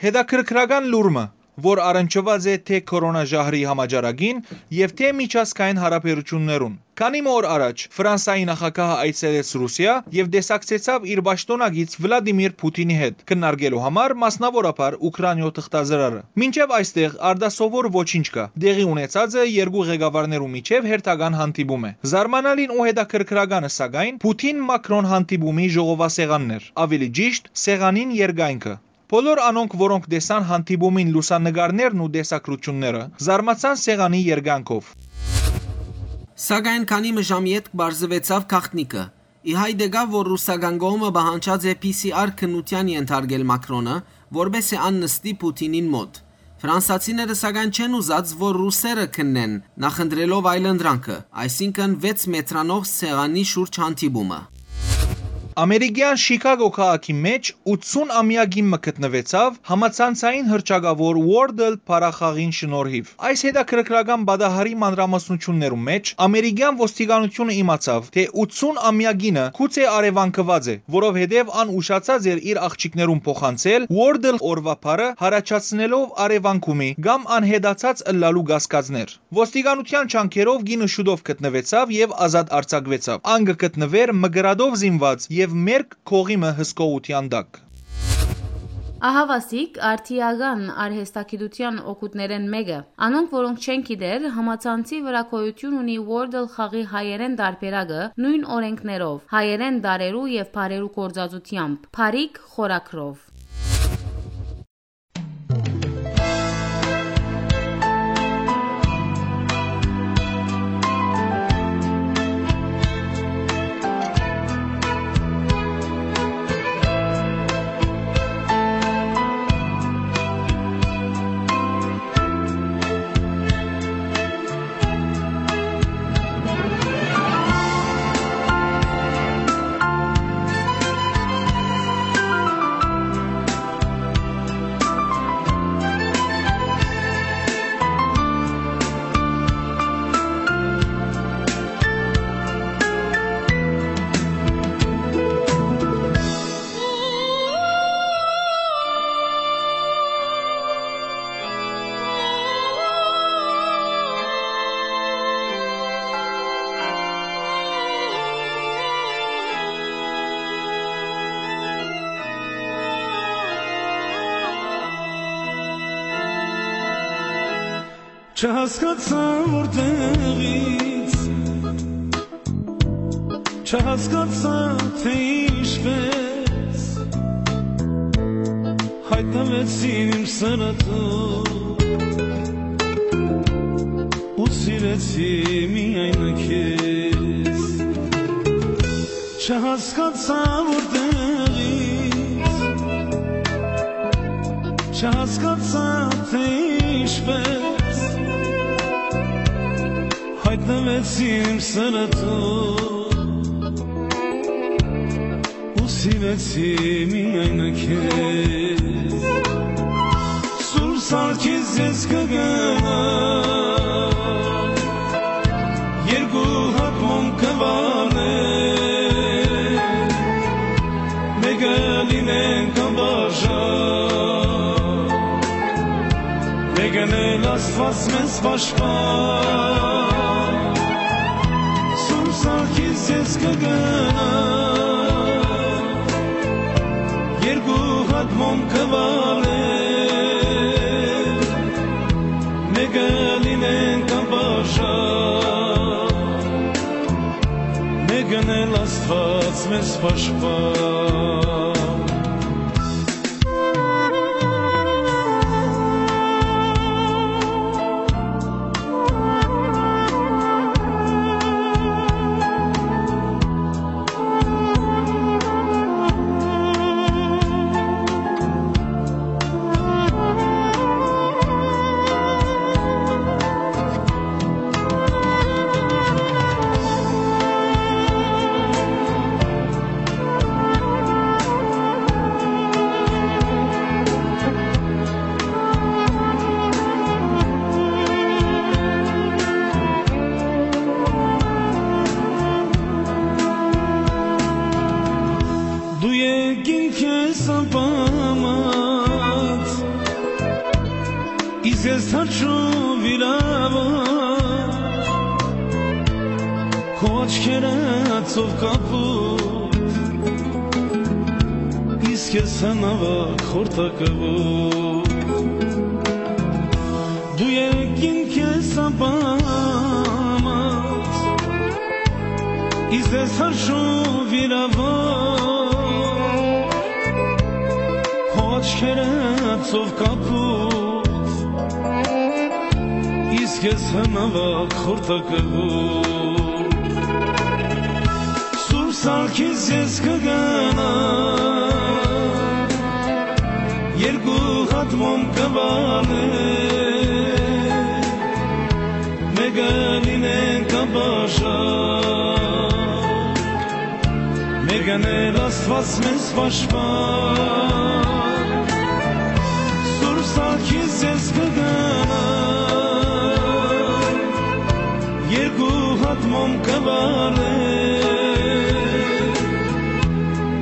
Հետաքրքրական լուր մը, որ առնչուած է թէ քորոնա ժահրի համաճարակին եւ թէ միջազգային հարաբերութիւններուն։ Քանի մը օր առաջ Ֆրանսայի նախագահը այցելեց Ռուսիա եւ տեսակցեցաւ իր պաշտօնակից Վլադիմիր Փութինի հետ, քննարկելու համար մասնաւորաբար Ուքրաինիոյ թղթազրարը։ Մինչեւ այստեղ արտասովոր ոչինչ կայ։ Տեղի ունեցածը երկու ղեկավարներու միջեւ հերթական հանդիպում է։ Զարմանալին ու հետաքրքրականը, սակայն, Փութին-Մակրոն հանդիպումի ժողովասեղանն էր, աւելի ճիշդ, սեղանին երկայնքը։ Բոլոր անոնք, որոնք տեսան հանդիպումին լուսանկարներն ու տեսագրութիւնները, զարմացան սեղանի երկայնքով։ Սակայն քանի մը ժամ ետք պարզուեցաւ գաղտնիքը։ Ի հայտ եկաւ, որ ռուսական կողմը պահանջած է P C R քննութեան ենթարկել Մակրոնը, որպէսզի ան նստի Փութինին մօտ։ Ֆրանսացիները, սակայն, չեն ուզած, որ ռուսերը քննեն, նախընտրելով այլընտրանքը, այսինքն վեց մեթրանով սեղանի շուրջ հանդիպումը։ Ամերիկեան Շիքագո քաղաքի մէջ ութսուն ամեակին մը գտնուեցաւ համացանցային հռչակաւոր Wordle բառախաղին շնորհիվ։ Այս հետաքրքրական պատահարի մանրամասնութիւններու մէջ ամերիկեան ոստիկանութիւնը իմացաւ, թէ ութսուն ամեակինը գուցե առեւանգուած է, որովհետեւ ան ուշացած էր իր աղջիկներուն փոխանցել Wordle օրուայ բառը, յառաջացնելով առեւանգումի կամ անհետացած ըլլալու կասկածներ։ Ոստիկանութեան ջանքերով կինը շուտով գտնուեցաւ եւ ազատ արձակուեցաւ։ Ան կը գտնուէր մկրատով զինուած եւ մերկ կողի մը հսկողութեան տակ։ Ահաւասիկ արդիական արհեստագիտութեան օգուտներէն մէկը։ Անոնք, որոնք չեն գիտեր, համացանցի վրա գոյութիւն ունի Wordle խաղի հայերէն տարբերակը նոյն օրէնքներով, հայերէն տառերու եւ բառերու գործածութեամբ, փառիկ խորագրով։ Չհասկացայ որտեղից, չհասկացայ, թէ ինչպես յայտնուեցին իմ սրտում ու սիրեցի միայն քեզ։ Չհասկացայ որտեղից, չհասկացայ, թէ ինչպես յայտնուեցի իմ սրտում ու սիրեցի միայն քեզ։ Սուրբ Սարգիս, ես կը գնամ, երկու հատ մոմ կը վառեմ, մէկը լինենք անբաժան, մէկն էլ Աստուած մեզ պաշտպան։ Սուրբ Սարգիս, ես կը գնամ, երկու հատ մոմ կը վառեմ, մէկը լինենք անբաժան, մէկն էլ Աստուած մեզ պաշտպան։ Դու եկին քեզ անպամած, իսկ ես թաչու վիրաված, քո աչքերը ծով կապուտ, իսկ ես հնաւակ խորտակաւոր։ Դու եկին քեզ անպամած, իսկ ես հրշու վիրաված, քո աչքերը ծով կապուտ, իսկ ես հնաւակ խորտակաւոր։ Սուրբ Սարգիս, ես կը գնամ, երկու հատ մոմ կը վառեմ, մէկը լինենք անպաշան, մէկն էլ Աստուած մեզ պաշտպան։ Սուրբ Սարգիս, ես կը գնամ, երկու հատ մոմ կը վառեմ,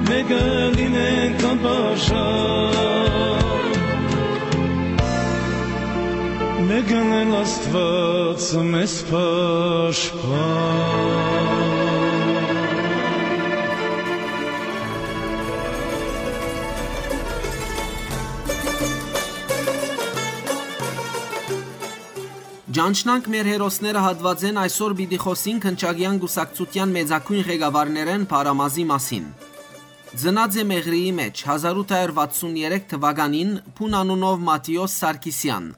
մէկը լինենք անպաշան, մէկն էլ Աստուած մեզ պաշտպան։ Ճանչնանք մեր հերոսները հատուածէն այսօր պիտի խօսինք Հնչակեան կուսակցութեան մեծագոյն ղեկավարներէն Փարամազի մասին։ Ծնած է Մեղրիի մէջ հազար ութ հարյուր վաթսուն երեք թուականին Փուն անունով Մատիոս Սարգիսեան։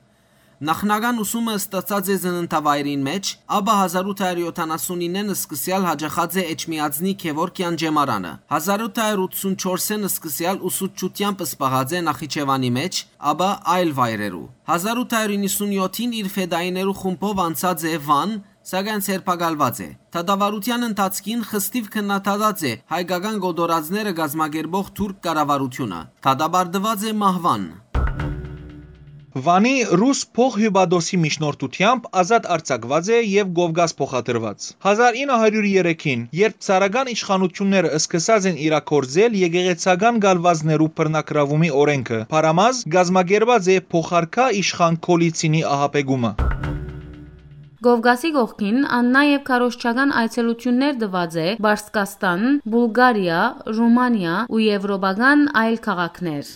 Նախնական ուսումը ստացած է ծննդավայրին մէջ, ապա հազար ութ հարյուր յոթանասունիննեն սկսեալ յաճախած է Էջմիածնի Գեորգեան ճեմարանը։ Հազար ութ հարյուր ութսուն չորսին սկսեալ ուսուցչութեամբ զբաղած է Նախիջեւանի մէջ, ապա այլ վայրերու։ Հազար ութ հարյուր իննսուն յոթին իր ֆետայիներու խումբով անցած է Վան, սակայն ձերբակալուած է։ Դատավարութեան ընթացքին խստիւ քննադատած է հայկական կոտորածները կազմակերպող թուրք կառավարութիւնը։ Դատապարտուած է մահուան։ Վանի ռուս փոխհիւպատոսի միջնորդութեամբ ազատ արձակուած է եւ Կովկաս փոխադրուած։ Հազար ինը հարիւր երեքին, երբ ցարական իշխանութիւնները սկսած են իրագործել եկեղեցական կալուածներու բռնակրաւումի օրէնքը, Փարամազ կազմակերպած է փոխարքայ իշխան Գոլիցինի ահաբեկումը։ Կովկասի կողքին ան նաեւ քարոզչական այցելութիւններ տուած է Պարսկաստան, Բուլղարիա, Ռումանիա ու եվրոպական այլ քաղաքներ։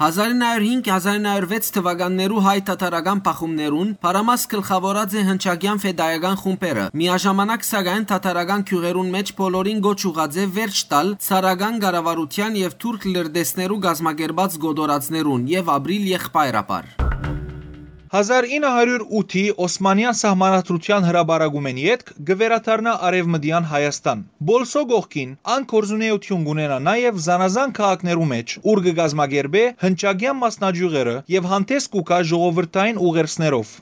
Հազարինը հարյուր հինգ, հազարինը հարյուր վեց թուականներու հայ-թաթարական բախումներուն Փարամազ գլխաւորած է հնչակեան ֆեդայական խումբերը։ Միաժամանակ, սակայն, թաթարական գիւղերուն մէջ բոլորին կոչ ուղղած է վերջ տալ ցարական կառավարութեան եւ թուրք լրտեսներու կազմակերպած կոտորածներուն եւ ապրիլ եղբայրաբար։ Հազար ինը հարիւր ութի Օսմանեան սահմանադրութեան հրապարակումէն ետք կը վերադառնայ Արեւմտեան Հայաստան։ Պոլսոյ կողքին, ան գործունէութիւն կ'ունենայ նաեւ զանազան քաղաքներու մէջ, ուր կը կազմակերպէ հնչակեան մասնաճիւղերը եւ հանդէս կու գայ ժողովրդային ուղերձներով։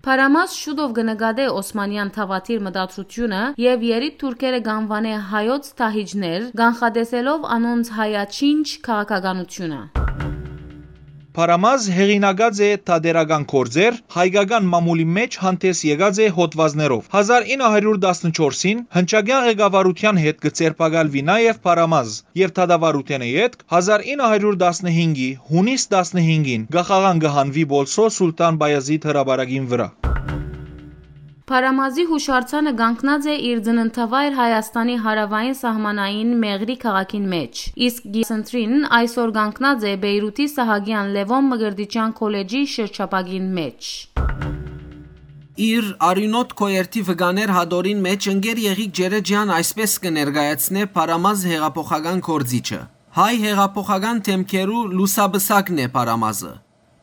Փարամազ շուտով կը նկատէ օսմանեան դաւադիր մտադրութիւնը եւ երիտ թուրքերը կ'անուանէ հայոց դահիճներ, կանխատեսելով անոնց հայաչինչ քաղաքականութիւնը։ Փարամազ հեղինակած է թատերական գործեր, հայկական մամուլի մէջ հանդէս եկած է հոդուածներով։ Հազար ինը հարիւր տասնչորսին հնչակեան ղեկավարութեան հետ կը ձերբակալուի նաեւ Փարամազ եւ դատավարութենէ ետք հազար ինը հարիւր տասնհինգի յունիս տասնհինգին կախաղան կը հանուի Պոլսոյ Սուլթան Պայազիթ հրապարակին վրայ։ Փարամազի յուշարձանը կանգնած է իր ծննդավայր Հայաստանի հարաւային սահմանային Մեղրի քաղաքին մէջ, իսկ կիսընտրին այսօր կանգնած է Պէյրութի Սահակեան Լեւոն Մկրտիչեան քոլեջի շրջափակին մէջ։ Իր արիւնոտ քոյերթի վկաներ հատորին մէջ ընկեր Եղիկ Ջերեջեան այսպէս կը ներկայացնէ Փարամազ հեղափոխական գործիչը։ Հայ հեղափոխական դէմքերու լուսապսակն է Փարամազը։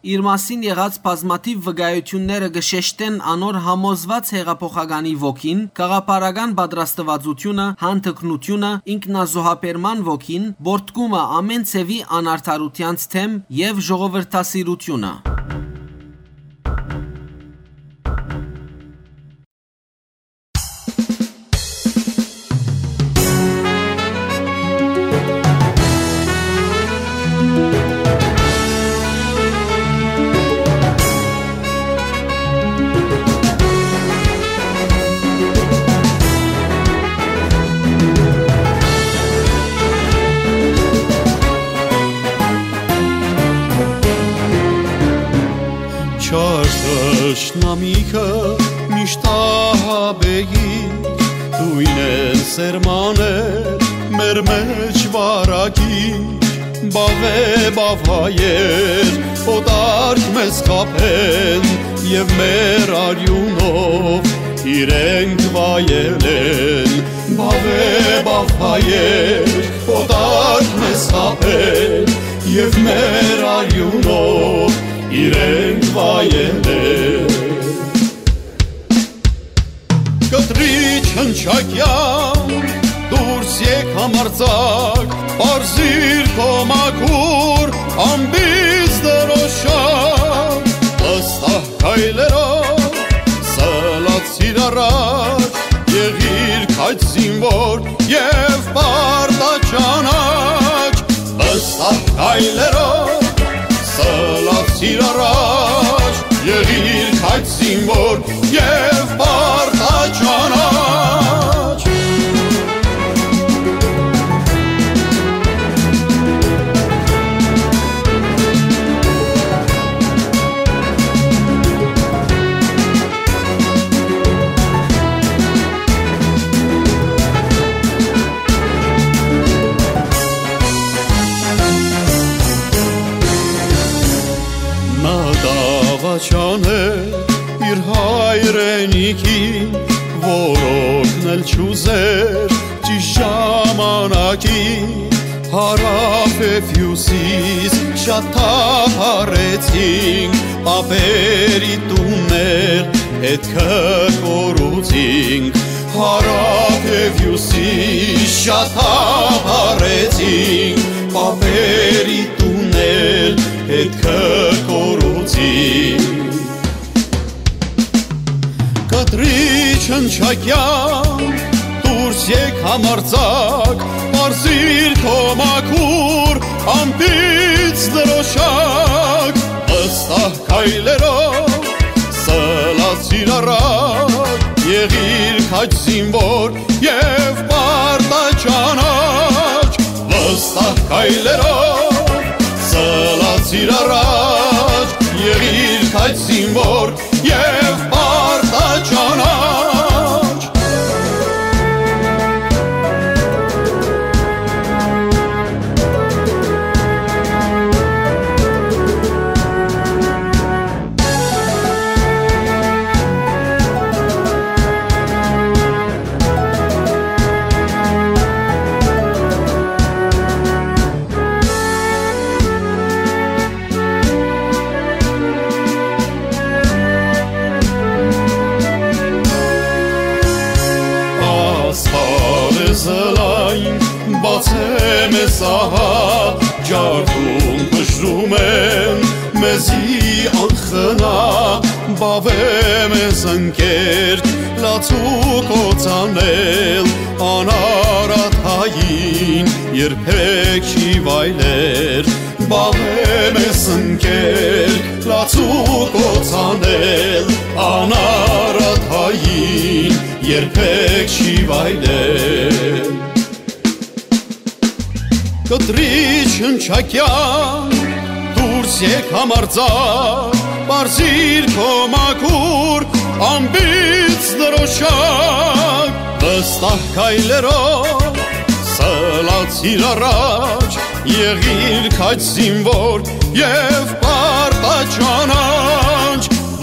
Իր մասին եղած բազմաթիւ վկայութիւնները կը շեշտեն անոր համոզուած հեղափոխականի ոգին, գաղափարական պատրաստուածութիւնը, յանդգնութիւնը, ինքնազոհաբերման ոգին, պոռթկումը ամէն ձեւի անարդարութեանց դէմ եւ ժողովրդասիրութիւնը։ Չար թշնամիքը միշտ ահաբեի, դոյնեն սերմաներ մեր մեջ վարակի, բաւե բաւայեր օտարք մեզ խաբեն, եւ մեր արիւնով իրենք վայելեն, բաւե բաւայեր օտարք մեզ խաբեն, եւ մեր արիւնով իրենք վայելեն։ Կտրիչ հնչակեան, դուրս եկ համարձակ, պարզիր քո մաքուր ամպից դրոշակ, վստահ քայլերով սլացիր առաջ, եղիր քաջ զինվոր եւ պարտաճանաչ, վստահ քայլերով սլացիր առաջ, եղիր քաջ զինվոր եւ պարտաճանաչ։ Նա դավաճան է իր հայրենիքին, որ օգնել չուզեր ճիշտ ժամանակին։ Հարաւ եւ հիւսիս շատ թափառեցինք, պապերի տուններ ետքը կորուցինք։ Հարաւ եւ հիւսիս շատ թափառեցինք, պապերի տուններ ետքը կորուցինք։ Կտրիչ հնչակեան, դուրս եկ համարձակ, պարզիր քո մաքուր ամպից դրոշակ, վստահ քայլերով սլացիր առաջ, եղիր քաջ զինվոր եւ պարտաճանաչ, վստահ քայլերով սլացիր առաջ, եղիր քաջ զինվոր եւ պարտաճանաչ։ Սլայն, բացե մեզ ահա, ջարդուն բժրում են, մեզի անխնա, բավե մեզ ընկեր, լացու կոց անել, անարատ հային երբեք չի վայլեր, բավե մեզ ընկեր, լացու կոց անել, անարատ հային երբեք չի վայլել։ Կտրիչ հնչակեան, դուրս եկ համարձակ, պարզիր քո մաքուր ամպից դրոշակ, վստահ քայլերով սլացիր առաջ, եղիր քաջ զինվոր եւ պարտաճանաչ,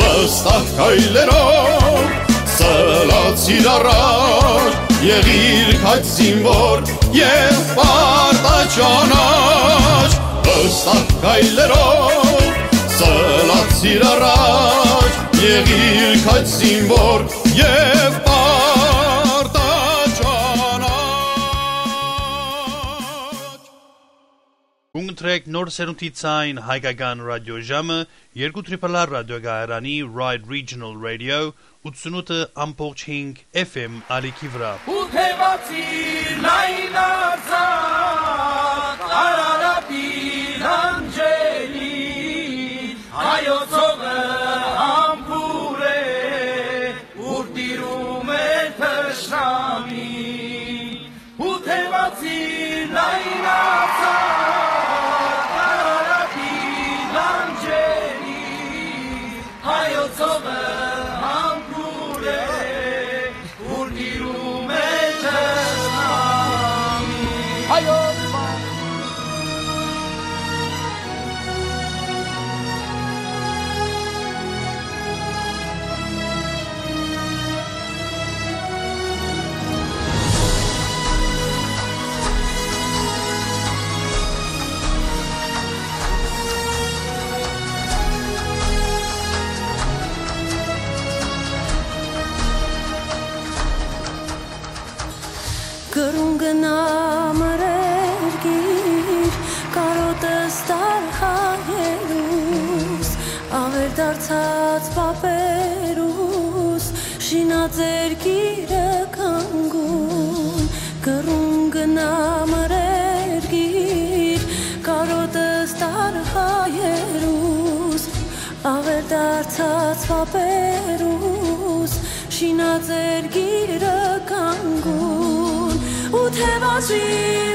վստահ քայլերով սլացիր առաջ, եղիր քաջ զինվոր եւ պարտաճանաչ, վստահ քայլերով սլացիր առաջ, եղիր քաջ զինվոր եւ պարտաճանաչ։ Կուն կտրեք նոր սերունդի ցայն հայկական ռադիոժամը, երկու Triple R ռադիոկայարանի Ride Regional Radio, ութսունութ ամբողջ հինգ F M ալիքի վրա։ Ու թևացի լայն արձակ Արարատի լանջերին, հայոց հողը համբուրե, ուր տիրում է թշնամի։ Ու թևացի լայն արձակ Արարատի լանջերին, հայոց հողը համբուրե, ուր տիրում է թշնամի։ Հայոց Կրուն գնա մրերկիր, կարոտս տար հայերուս, աւեր դարձած պապերուս, շինած երկիրը կանգուն։ Կրուն գնա մրերկիր, կարոտս տար հայերուս, աւեր դարձած պապերուս, շինած երկիրը կանգուն, ու թևացի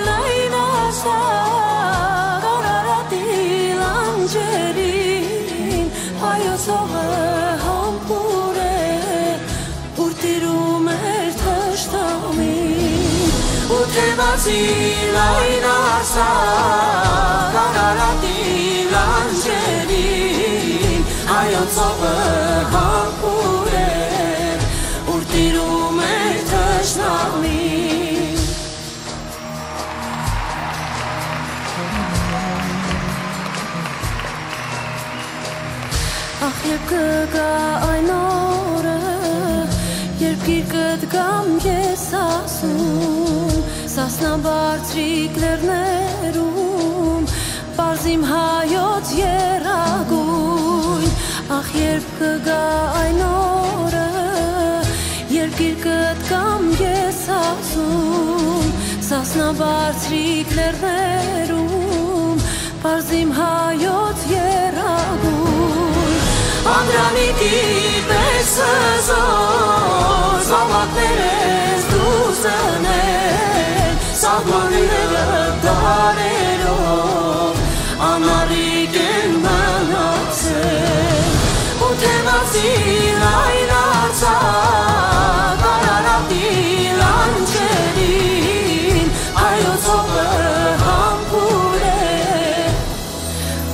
լայն արձակ Արարատի լանջերին, հայոց հողը համբուրե, ուր տիրում էր թշնամին, ու թևացի լայն արձակ Արարատի լանջերին, հայոց հողը համբուրե, ուր տիրում էր թշնամին։ Ախ, երբ կը գայ այն օրը, երբ գիրկդ կամ ես ասում, Սասնաբարձրիկ լեռներում, պարզ իմ հայոց եռագույն, ախ, երբ կը գայ այն օրը, երբ գիրկդ կամ ես ասում, Սասնաբարձրիկ լեռներում, պարզ իմ հայոց եռագույն, Անդրանիկի պես հզոր, զաւակներս դու զնել, սահմանները դարերով անառիկ են մնացել, ու թևացի լայն արձակ Արարատի լանջերին, հայոց հողը համբուրե,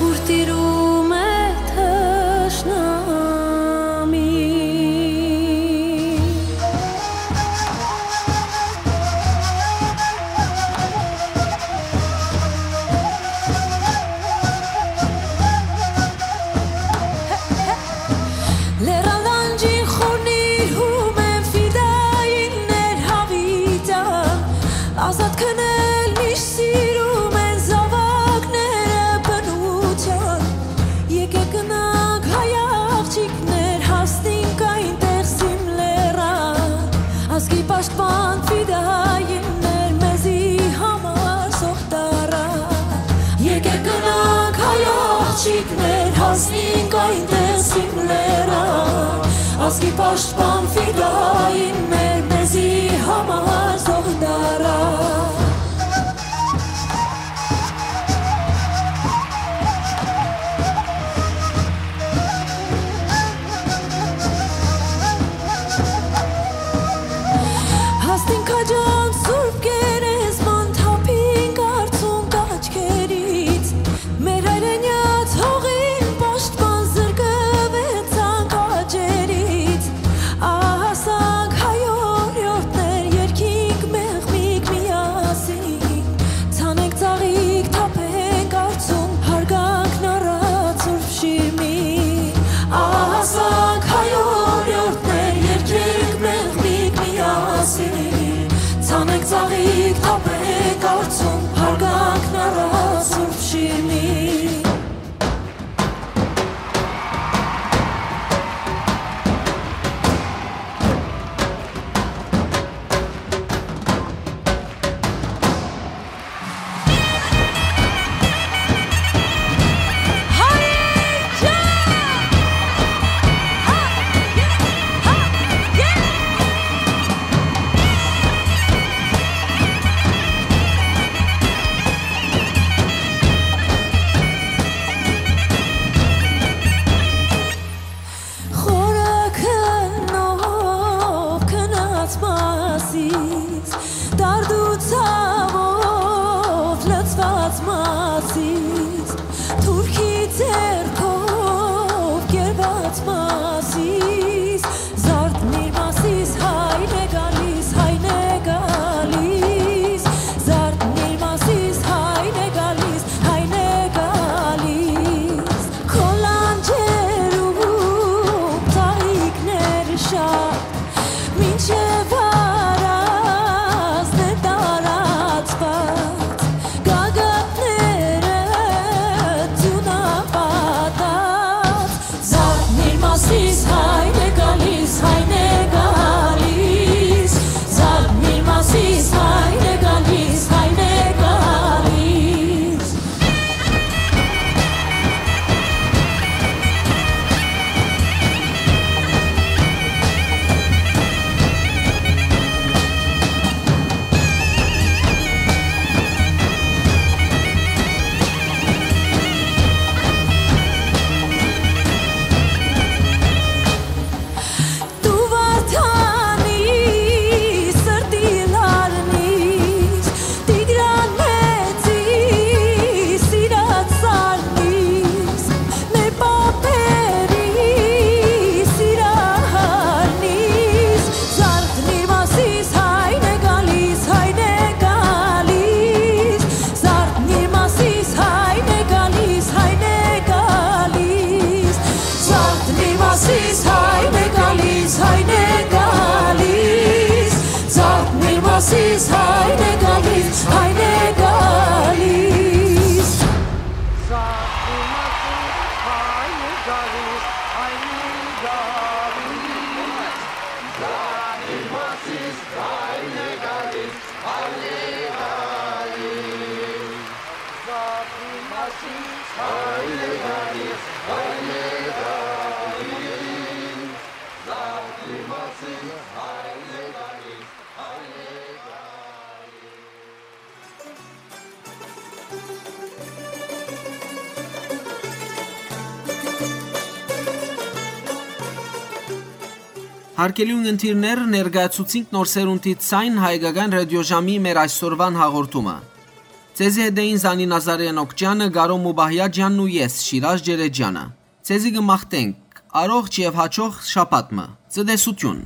ուր տիրում է թշնամի։ Լեռան Ազատքն էլ միշտ սիրում են զաւակները բնութեան։ Եկեք գնանք, հայ աղջիկներ, հասնենք այնտեղ Սիմլերան։ Ազգի պաշտպան ֆիդայիններ, մեզի համար զոհ տարան։ Եկեք գնանք, հայ աղջիկներ, հասնենք այնտեղ Սիմլերան։ Ազգի պաշտպան ֆիդայիններ, մեզի համար զոհ տարան։ Հասնենք քաջան Սուրբ Գերեզման, թափինք արցունք աչքերից։ Մեր հայրենյաց հողին պաշտպան, զրկվեցանք աճերից։ Ահասանք հայ օրիորդներ, երգինք մեղմիկ միասին։ Ցանենք ծաղիկ, թափենք արցունք, հարգանքն առած Սուրբ Շիրմին։ Ահասանք հայ օրիորդներ, երգենք մեղմիկ միասին։ Ցանենք ծաղիկ, թափենք արցունք, հարգանքն առած Սուրբ Շիրմին։ Խորը քննով քնած Մասիս, դարդու ցաւով լցված Մասիս, թուրքի ձեռքով կերված Մասիս, զարթնիր Մասիս, հայն է գալիս, հայն է գալիս, զարթնիր Մասիս, հայն է գալիս, հայն է գալիս։ Քո լանջերում ծաղիկներ շատ, մինչեւ առանձն է տարածված, գագաթները ձիուն պատած։ Զարթնիր Մասիս, հայն է գալիս, հայն է գալիս, զարթնիր Մասիս, հայն է գալիս, հայն է գալիս։ Դու Վարդանի սրտի լարնիս, Տիգրան մեծի սիրած սարնիս, մեր պապերի սիրահարնիս, զարթնիր Մասիս, հայն է գալիս, հայն է գալիս, զարթնիր Մասիս, հայն է գալիս, հայն է գալիս, զարթնիր Մասիս, հայն է գալիս, հայն է գալիս, զարթնիր Մասիս, հայն է գալիս, հայն է գալիս։ Հարգելի ունգընտիրներ, ներկայացուցինք Նոր Սերունդի Ձայն հայկական ռադիոժամի մեր այսօրուան հաղորդումը։ Ձեզի հետ էին Զանի Նազարեան Օքճյանը, Կարո Մուբահյաջյանն ու ես, Շիրազ Ջերեջյանը։ Ձեզի կը մաղթենք առողջ եւ հաճող շաբաթ մը։ Ցտեսություն։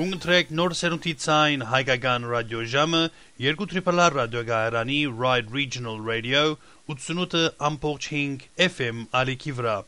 Կընտրեք Նոր Սերունդի Ձայն հայկական ռադիոժամը երկու Triple R ռադիոկայարանի Ride Regional Radio ութսունութ ամբողջ հինգ F M ալիքի վրայ։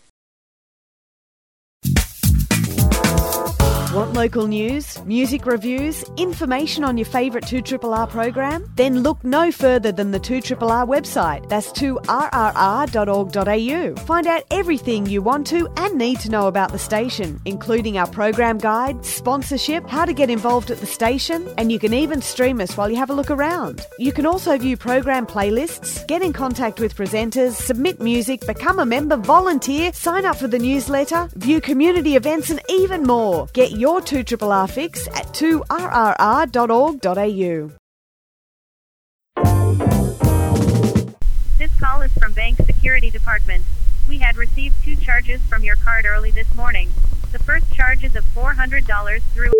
Want local news, music reviews, information on your favourite two triple R program? Then look no further than the two triple R website. That's two R R R dot org dot A U. Find out everything you want to and need to know about the station, including our program guide, sponsorship, how to get involved at the station, and you can even stream us while you have a look around. You can also view program playlists, get in contact with presenters, submit music, become a member, volunteer, sign up for the newsletter, view community events, and even more. Get your two triple R fix at two R R R dot org dot A U. This call is from Bank Security Department. We had received two charges from your card early this morning. The first charge is of four hundred dollars through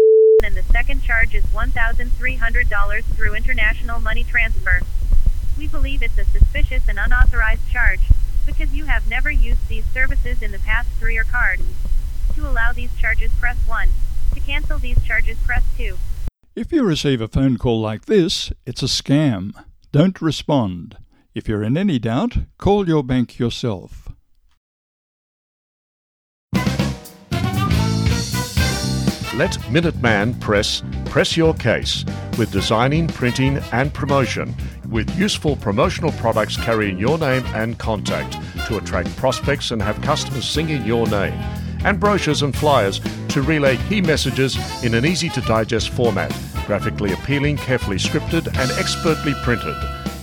and the second charge is one thousand three hundred dollars through international money transfer. We believe it's a suspicious and unauthorized charge because you have never used these services in the past through your card. To allow these charges, press one. To cancel these charges, press two. If you receive a phone call like this, it's a scam. Don't respond. If you're in any doubt, call your bank yourself. Let Minuteman Press press your case with designing, printing, and promotion, with useful promotional products carrying your name and contact to attract prospects and have customers singing your name, and brochures and flyers to relay key messages in an easy to digest format, graphically appealing, carefully scripted, and expertly printed.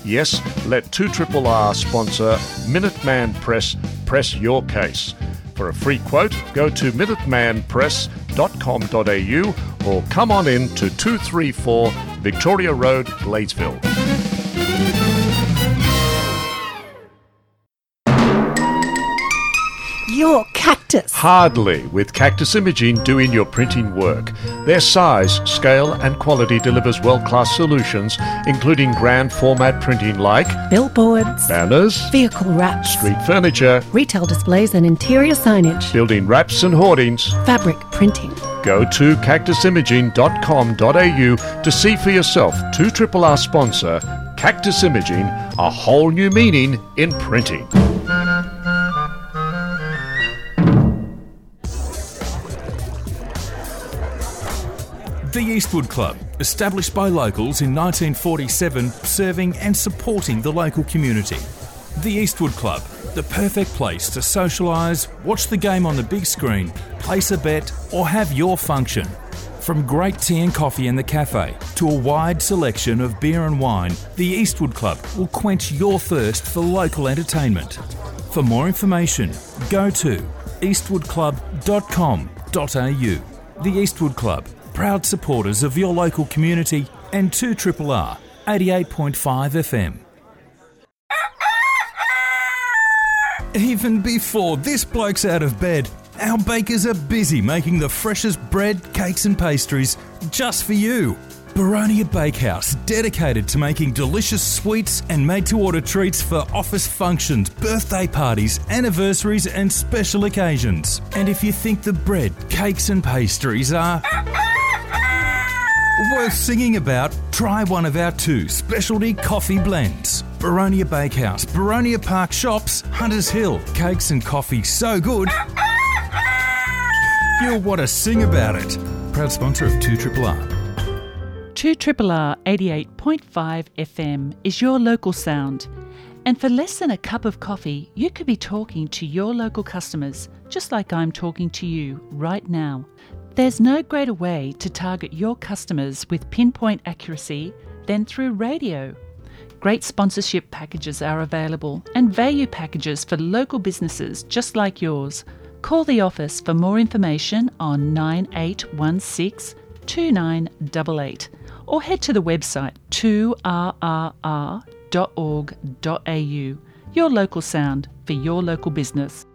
Yes, let two triple R sponsor Minuteman Press press your case. For a free quote, go to minuteman press dot com dot A U or come on in to two three four Victoria Road, Gladesville. Your cactus. Hardly, with Cactus Imaging doing your printing work. Their size, scale, and quality delivers world class solutions, including grand format printing like billboards, banners, vehicle wraps, street furniture, retail displays and interior signage, building wraps and hoardings, fabric printing. Go to cactus imaging dot com dot A U to see for yourself two triple R sponsor Cactus Imaging, a whole new meaning in printing. The Eastwood Club, established by locals in nineteen forty-seven, serving and supporting the local community. The Eastwood Club, the perfect place to socialise, watch the game on the big screen, place a bet, or have your function. From great tea and coffee in the cafe to a wide selection of beer and wine, the Eastwood Club will quench your thirst for local entertainment. For more information, go to eastwood club dot com dot A U. The Eastwood Club, proud supporters of your local community and two triple R, eighty-eight point five F M. Even before this bloke's out of bed, our bakers are busy making the freshest bread, cakes, and pastries just for you. Baronia Bakehouse, dedicated to making delicious sweets and made to order treats for office functions, birthday parties, anniversaries, and special occasions. And if you think the bread, cakes, and pastries are worth singing about, try one of our two specialty coffee blends. Baronia Bakehouse, Baronia Park Shops, Hunters Hill. Cakes and coffee so good, you'll want to sing about it. Proud sponsor of two triple R. two triple R eighty-eight point five F M is your local sound. And for less than a cup of coffee, you could be talking to your local customers, just like I'm talking to you right now. There's no greater way to target your customers with pinpoint accuracy than through radio. Great sponsorship packages are available and value packages for local businesses just like yours. Call the office for more information on nine eight one six two nine eight eight or head to the website two R R R dot org dot A U. Your local sound for your local business.